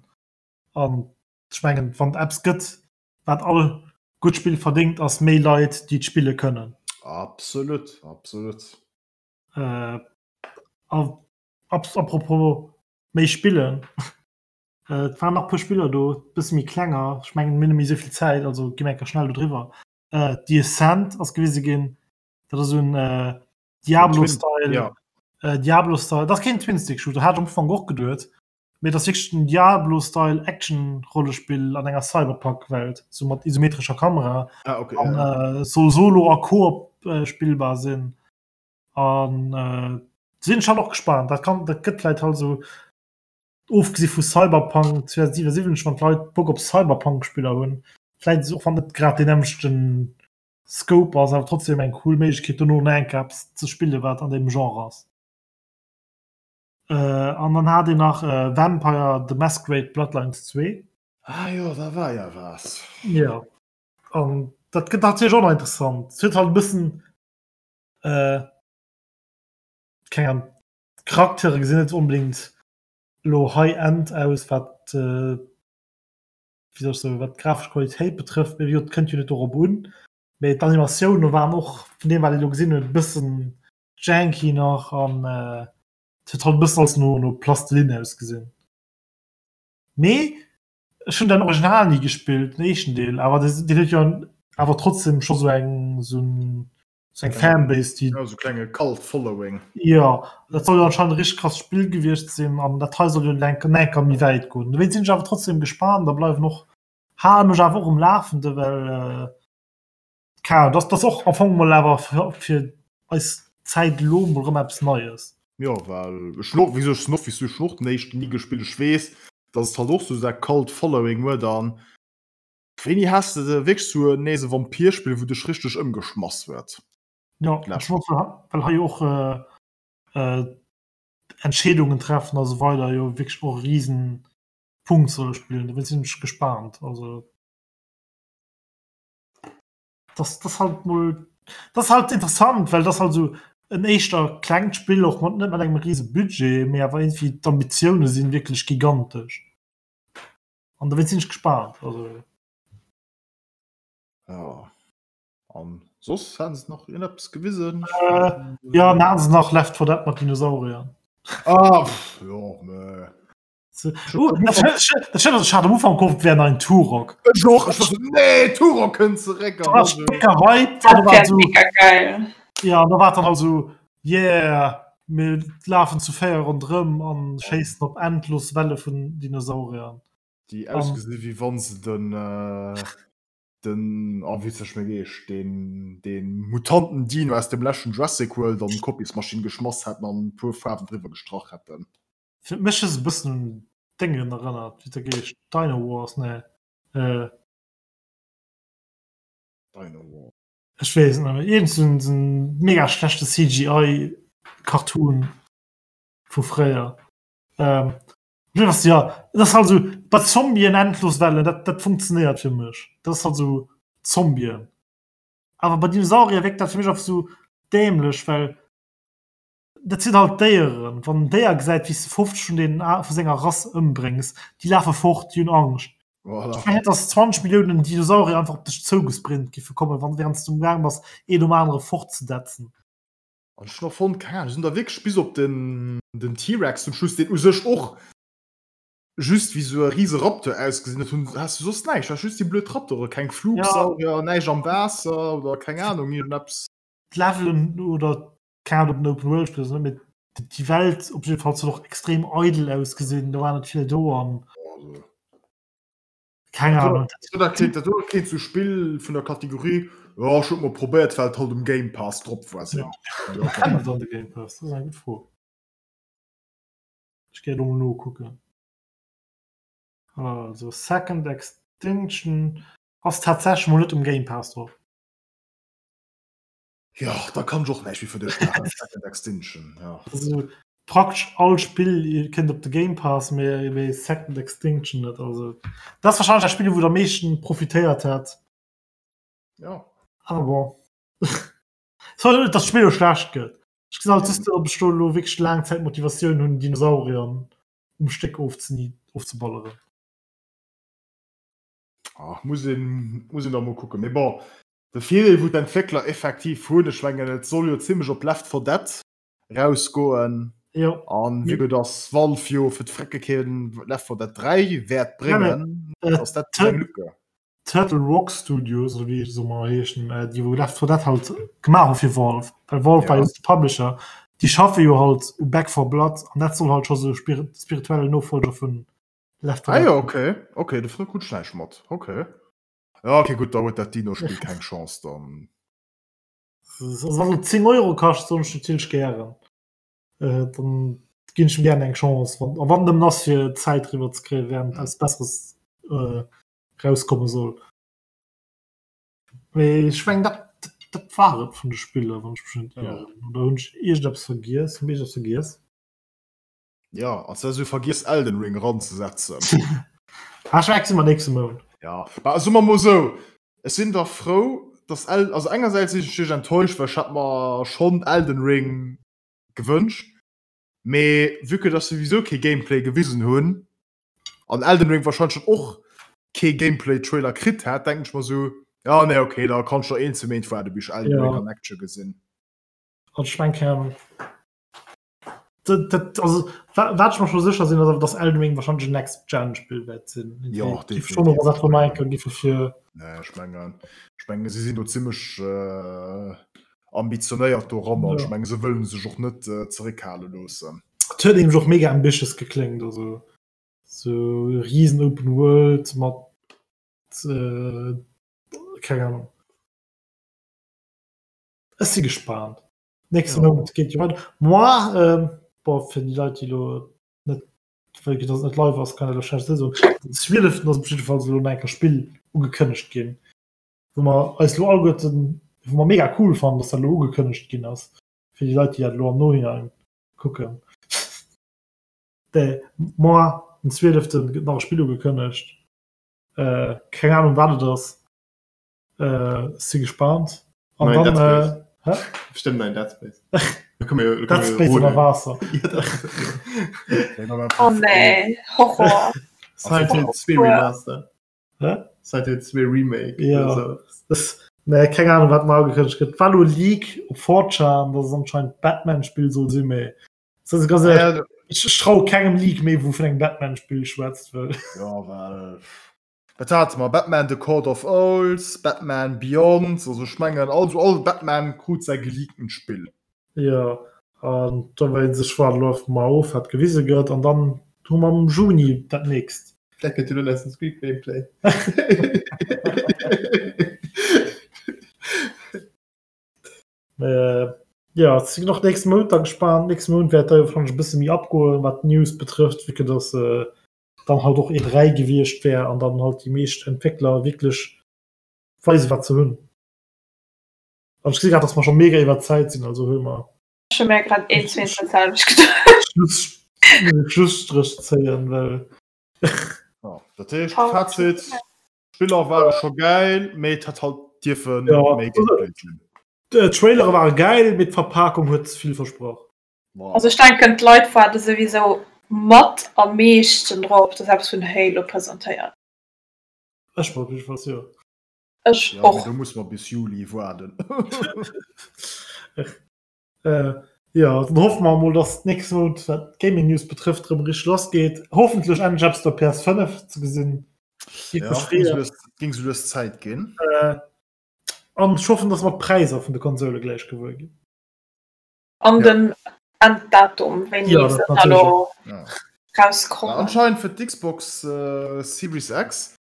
An ech mengen, wann et eppes gëtt, wat all gutt Spill verdéngt, ass méi Leit, déi et spille kënnen. Absolut, absolut. Äh, a, apropos méi spillen, äh, et waren nach e puer Spiller do, bësse méi klenger. Ech mengen, mir hunn net méi esou vill Zäit, also gi mir enker schnell do driwwer. Äh, The Ascent ass gewise ginn. Dat ass un äh, Diablo-Style. Ja. Äh, Diablo-Style. Dat ass keen Twin-Stick-Shooter, hat am Ufank och geduet. Mee dat ass wierklech en Diablo-Style Action-Rollespill an enger Cyberpunk-Welt, sou mat isometrescher Kamera. Ah, okay, An ja. äh, soll solo a Koop äh, spillbar sinn. An äh, sinn ech halt och gespaant. Dat kann, dat gëtt vläit halt sou ofgesi vu Cyberpunk 2077, wann d'Leit Bock op Cyberpunk-Spiller hunn, vläit och wann net grad deen nämmlechten Scope ass, awer trotzdem eng cool Méiglechkeet dono nach eng Kéier eppes ze spillen, wat an deem Genre ass. Äh, an dann hat een nach äh, Vampire the Masquerade Bloodlines 2. Ah jo, da war ja was. Ja. An dat gëtt natierlech och nach interessant. Et huet halt e bëssen äh, keng Ahnung, d'Charaktere gesinn net onbedéngt elo High-End aus, wat äh, wéi soll ech soen, wat d'grafesch Qualitéit betrëfft, mee wéi gesot, et kënnt jo net dorop un. Mee d'Animatioune waren och vun deem wat ee elo gesinn huet e bëssen janky nach an äh, et huet halt e bëssen alles no no Plastilinn ausgesinn. Mee ech hunn den Original ni gespillt, den éischten Deel, awer deen huet jo awer trotzdem scho sou eng sou en sou eng Fanbase, déi. Ja, sou klenge Cult Following. Jo, dat soll jo anscheinend e richteg krasst Spill gewiescht sinn an dat hei soll jo enk enker méi wäit goen. Dowéinst sinn ech awer trotzdem gespaant a bleiwen och, hale mech awer och um Lafende, well keng Ahnung, dat ass och am Fong mol awer fir eis Zäit elo mol erëm eppes Neies. Jo, well ech hunn och, wéi gesot, ech sinn och wéi s du, ech hunn och den éischten ni gespillt. Ech weess, datt et halt och sou säi Cult Following huet an Wéini has de de wierklech sou nees e Vampirspill wou dech richteg ëmgeschmass huet? Jo, well hei jo och Entscheedungen treffen a sou weider jo wierklech och e riesen Punkt solle spillen. Dowéinst sinn ech gespaant. Also das das halt mol das halt interessant, well das halt sou en éischter klengt Spill och mat net mat engem riese Budget, mee awer iergendwéi d'Ambitioune sinn wierklech gigantesch. An dowéinst sinn ech gespaant. Also. Ja. An soss haten se nach iergendeppes gewisen? Äh, ja, dann haten se nach Left 4 Dead mat Dinosauriern. Ah, pff, jo, mä. So, oh, dat dat dat ech hat am Ufank gehofft, et wär nach en Turok. Ech och, ech war so, nee, Turok kënnt zeréck. Da war ech mega hyped. Dat wär mega geil. Ja, an da war dann halt so, yeah, mir lafen zu 4 ronderëm an schéissen op endlos Welle vun Dinosauriern. Déi ausgesi wéi wann se den den oh wéi huet sech méi geheescht deen deen Mutanten Dino aus dem leschten Jurassic World an d'Kopiesmaschinn geschmass hätten an e puer Faarwen driwwer gestrach hätten. Fir mech huet se e bëssen un Déngen erënnert, wéi huet der geheescht, Dino Wars, nee äh. Dino Wars. Ech weess et net méi. Iergend sou en mega schlechte CGI Cartoon vu fréier. Ähm, was, ja, dat ass halt sou bei Zombien endlos Wellen, dat, dat funktionéiert fir mech. Dat ass halt sou Zombien. Awer bei Dinosaurier wierkt dat fir mech einfach sou dämlech, well Dat sinn halt Déieren. Wann en Déier gesäit, wéi s de 50 vun deenen vu senger Rass ëmbréngs, déi lafe fort, déi hunn Angscht. Voilà. Ech mengen net, datt 20 Milliounen Dinosaurier einfach op dech zougesprint giffe kommen, wann wärend s du amgaang bass, een nom anere fortzedetzen. An ech hunn och fonnt, keng Ahnung, se hunn da wierklech bis op den, den T-Rex zum Schluss, deen u sech och just wéi sou e rise Raptor ausgesinn huet, hunn, has du soss näischt, du has just déi blöd Raptore, keng Flugsaurier, näischt am Waasser oder keng Ahnung, iergendeppes. D'Levelen oder Keng Ahnung, ob en Open World Spill ass oder net, mee déi Welt op jidde Fall huet och extrem eidel ausgesinn, do war net vill do an keng Ahnung. Dat kéint dat kéint sou Spill vun der Kategorie jo ech hunn et mol probéiert well et halt um Game Pass drop war sinn. Ja. Kennt et an de Game Pass? Dat ass eng gutt Fro. Ech géif elo mol nokucken. Also Second Extinction ass tatsächlech mol net um Game Pass drop. Jo, da kann ech och näischt méi fir dech maachen. Second Extinction, ja. Also praktesch all Spill kënnt op de Game Pass, mee mee Second Extinction net. Also dat ass wahrscheinlech dat Spill, wou et am meeschten profitéiert hätt. Ja. Awer bon. Soll net, dass d'Spill elo schlecht gëtt. Ech gesinn halt just net, ob ech do elo wierklech laang Zäit Motivatioun hunn, Dinosaurier um Stéck ofzeni ofzeballeren. Ah, muss een, muss een da mol kucken. Mee bon, De Virdeel wou d'Entwéckler effektiv hunn, ech mengen et soll jo zimlech op Left 4 Dead rausgoen, an vue que dass Valve jo fir d'Frecke keen Left 4 Dead 3 wäert bréngen, ass dat eng Lücke. Turtle Rock Studios oder wéi se ëmmer heeschen, äh, déi wou Left 4 Dead halt gemaach hu fir Valve, well Valve war Ja. jo de Publisher, déi schaffe jo halt u Back 4 Blood an dat soll halt scho sou spir spirituelle Nofolger vun Left 4 Ah Dead jo, okay. Okay, dovunner krut ech näischt mat. Okay. Ja, okay, gutt, da huet dat Dino-Spill keng Chance dann. Also wann et 10 Euro kascht, soen ech natierlech gären. Äh, dann ginn ech em gären eng Chance, wann, a wann nëmmen ass fir Zäit riwwer ze kréien, während Mhm. eppes Besseres äh, rauskomme soll. Mee ech meng dat, dat, dat war et vun de Spiller, wann ech mech net Ja. ieren. Oder hunn ech iergendeppes vergiess? Hunn ech iergendeppes vergiess? Ja, als wär sou vergiess Elden Ring ranzesetzen. Ah, ech mengen, mer nächste Mount. Ja, ma soe mer mol sou, ech sinn da frou, dass El also engersäits sinn ech natierlech enttäuscht, well ech hat mer schonn Elden Ring gewënscht, mee vue que dass se souwisou kee Gameplay gewisen hunn an Elden Ring warscheinlech dann och kee Gameplay-Trailer kritt hätt, denken ech mer sou, ja nee okay, da kann ech nach een, zwee Méint waarde bis ech Elden Ring Ja. an Action gesinn. Also ech mengen, keng Ahnung. Dat, dat, also, wa- wat ech mer scho sécher sinn, ass awer, dass Elden Ring wahrscheinlech en Next-Gen-Spill wäert sinn. Ja, Géif schon noch was von enker gi fir Nee, ech mengen, ech mengen, si sinn do zimmlech äh, ambitionéiert doran an Ja. ech mengen, se wëllen sech och net äh, zeréckhale loossen. Et huet nämlech och mega ambitious gekléngt, also sou riesen Open World mat äh, keng Ahnung. Ech si gespaant. Nächste Ja. Mount geet jo weider. Moi, ähm, boah, fir déi Leit, déi elo net, well dass et net live ass, kann ech elo schlecht soen. Den 12. ass op jiddefalls elo nach eng Kéier Spill ugekënnegt ginn, wou mer eis elo alleguerten, wou mer mega cool fannen, dass dat elo ugekënnegt ginn ass, fir déi Leit, déi dat elo am Nohinein kucken. De moi, den 12. gëtt nach e Spill ugekënnegt. Äh, keng Ahnung, wat et ass. Äh, si gespannt. An Nein, dann, Dead äh, Space. hä? Bestimmt nein Dead Space. Da können wir, da Dead können wir Space ënner rodeln. Waasser. Ja, das, Oh nee, Horror. Silent Hill 2 Remaster. Hä? Silent Hill 2 Remake. Ja. oder so. Das, nee, keng Ahnung, wat mar ugekënnegt gëtt. War lo Leak op 4chan, dass es anscheinend Batman-Spill soll sinn, mee das ist ganz ehrlich, Ja, ich, ich trau kengem Leak méi, wou vun engem Batman-Spill schwätzt, well Ja, well wat hate mer? Batman The Court of Owls, Batman Beyond, also ech mengen also all Batman krut säi geleaktent Spill. Ja, an da wéi sech war läuft mar of, wat gewise gëtt, an dann hu mer am Juni dat nächst. Vielleicht könnt ihr nur Assassin's Creed Gameplay. Äh, ja, et sinn och nächste Mount da gespaant. Nächste Mount wäert da jo wahrscheinlech e bësse méi abgoen, wat d'News betrëfft, vu que dass äh, dann halt och E3 gewiescht wär an dann halt déi meescht Entwéckler wierklech weisen, wat se hunn. An ech gesi grad, dass mer scho mega iwwer d'Zäit sinn, also huele mer Ech hu mir grad een, zwee, dat selwecht geduecht. Schluss, Schlusstrich zéien, well Ja, dat heescht, Fazit, Spiller ware scho gäil, mee et hätt halt dierfe Ja. méi Gameplay ginn. d'Trailere ware gäil, mee d'Verpakung huet ze vill versprach. Voilà. Also ech denken d'Leit waarde souwisou mat am meeschten drop, dass eppes vun Halo presentéiert. Ech mol jiddefalls jo. Ech Ja, mee och. do muss mer bis Juli waarden. Äh, ja, dann hoffe mer mol, dass d'nächst Mount, wat d'Gaming News betrëfft, erëm richteg lass geet. Hoffentlech endlech eppes op der PS5 ze gesinn. Géif Ja, mech ging freeën. sou lues, ging sou lues Zäit ginn. Äh, an ech hoffen, dass mer d'Präisser vun de Konsole gläich gewuer ginn. An Ja. den Enddatum, wéini Ja, se dat da natierlech lo Ja. rauskommen. Anscheinend fir d'Xbox äh, Series X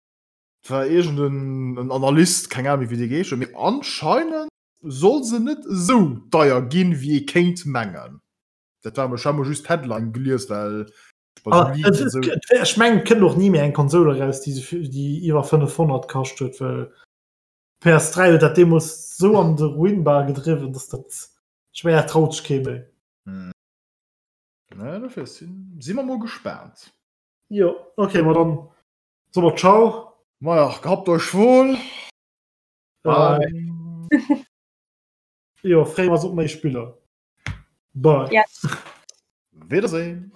war irgend en, en Analyst, keng Ahnung wéi dee geheescht huet, mee anscheinend soll se net esou deier ginn, wéi ee kéint mengen. Dat war ech hat mol just d'Headline gelies, well ech bei Ah, sou et, Leaks et, esou. et, ech mengen, et kënnt och ni méi eng Konsole eraus, déi, sou vill- déi iwwer 500 kascht huet, well PS3 huet dat deemools sou an de Ruin bal gedriwwen, dass dat, ech mengen, dat traut sech kee méi. Hm. Na, dofir sinn, si mer mol gespaant. Jo, okay, ma dann soe mer Ciao. Maja, gehabt euch wohl. Bye. Jo, freeë mer eis op méi Spiller. Bye. Yes. Wiedersehen.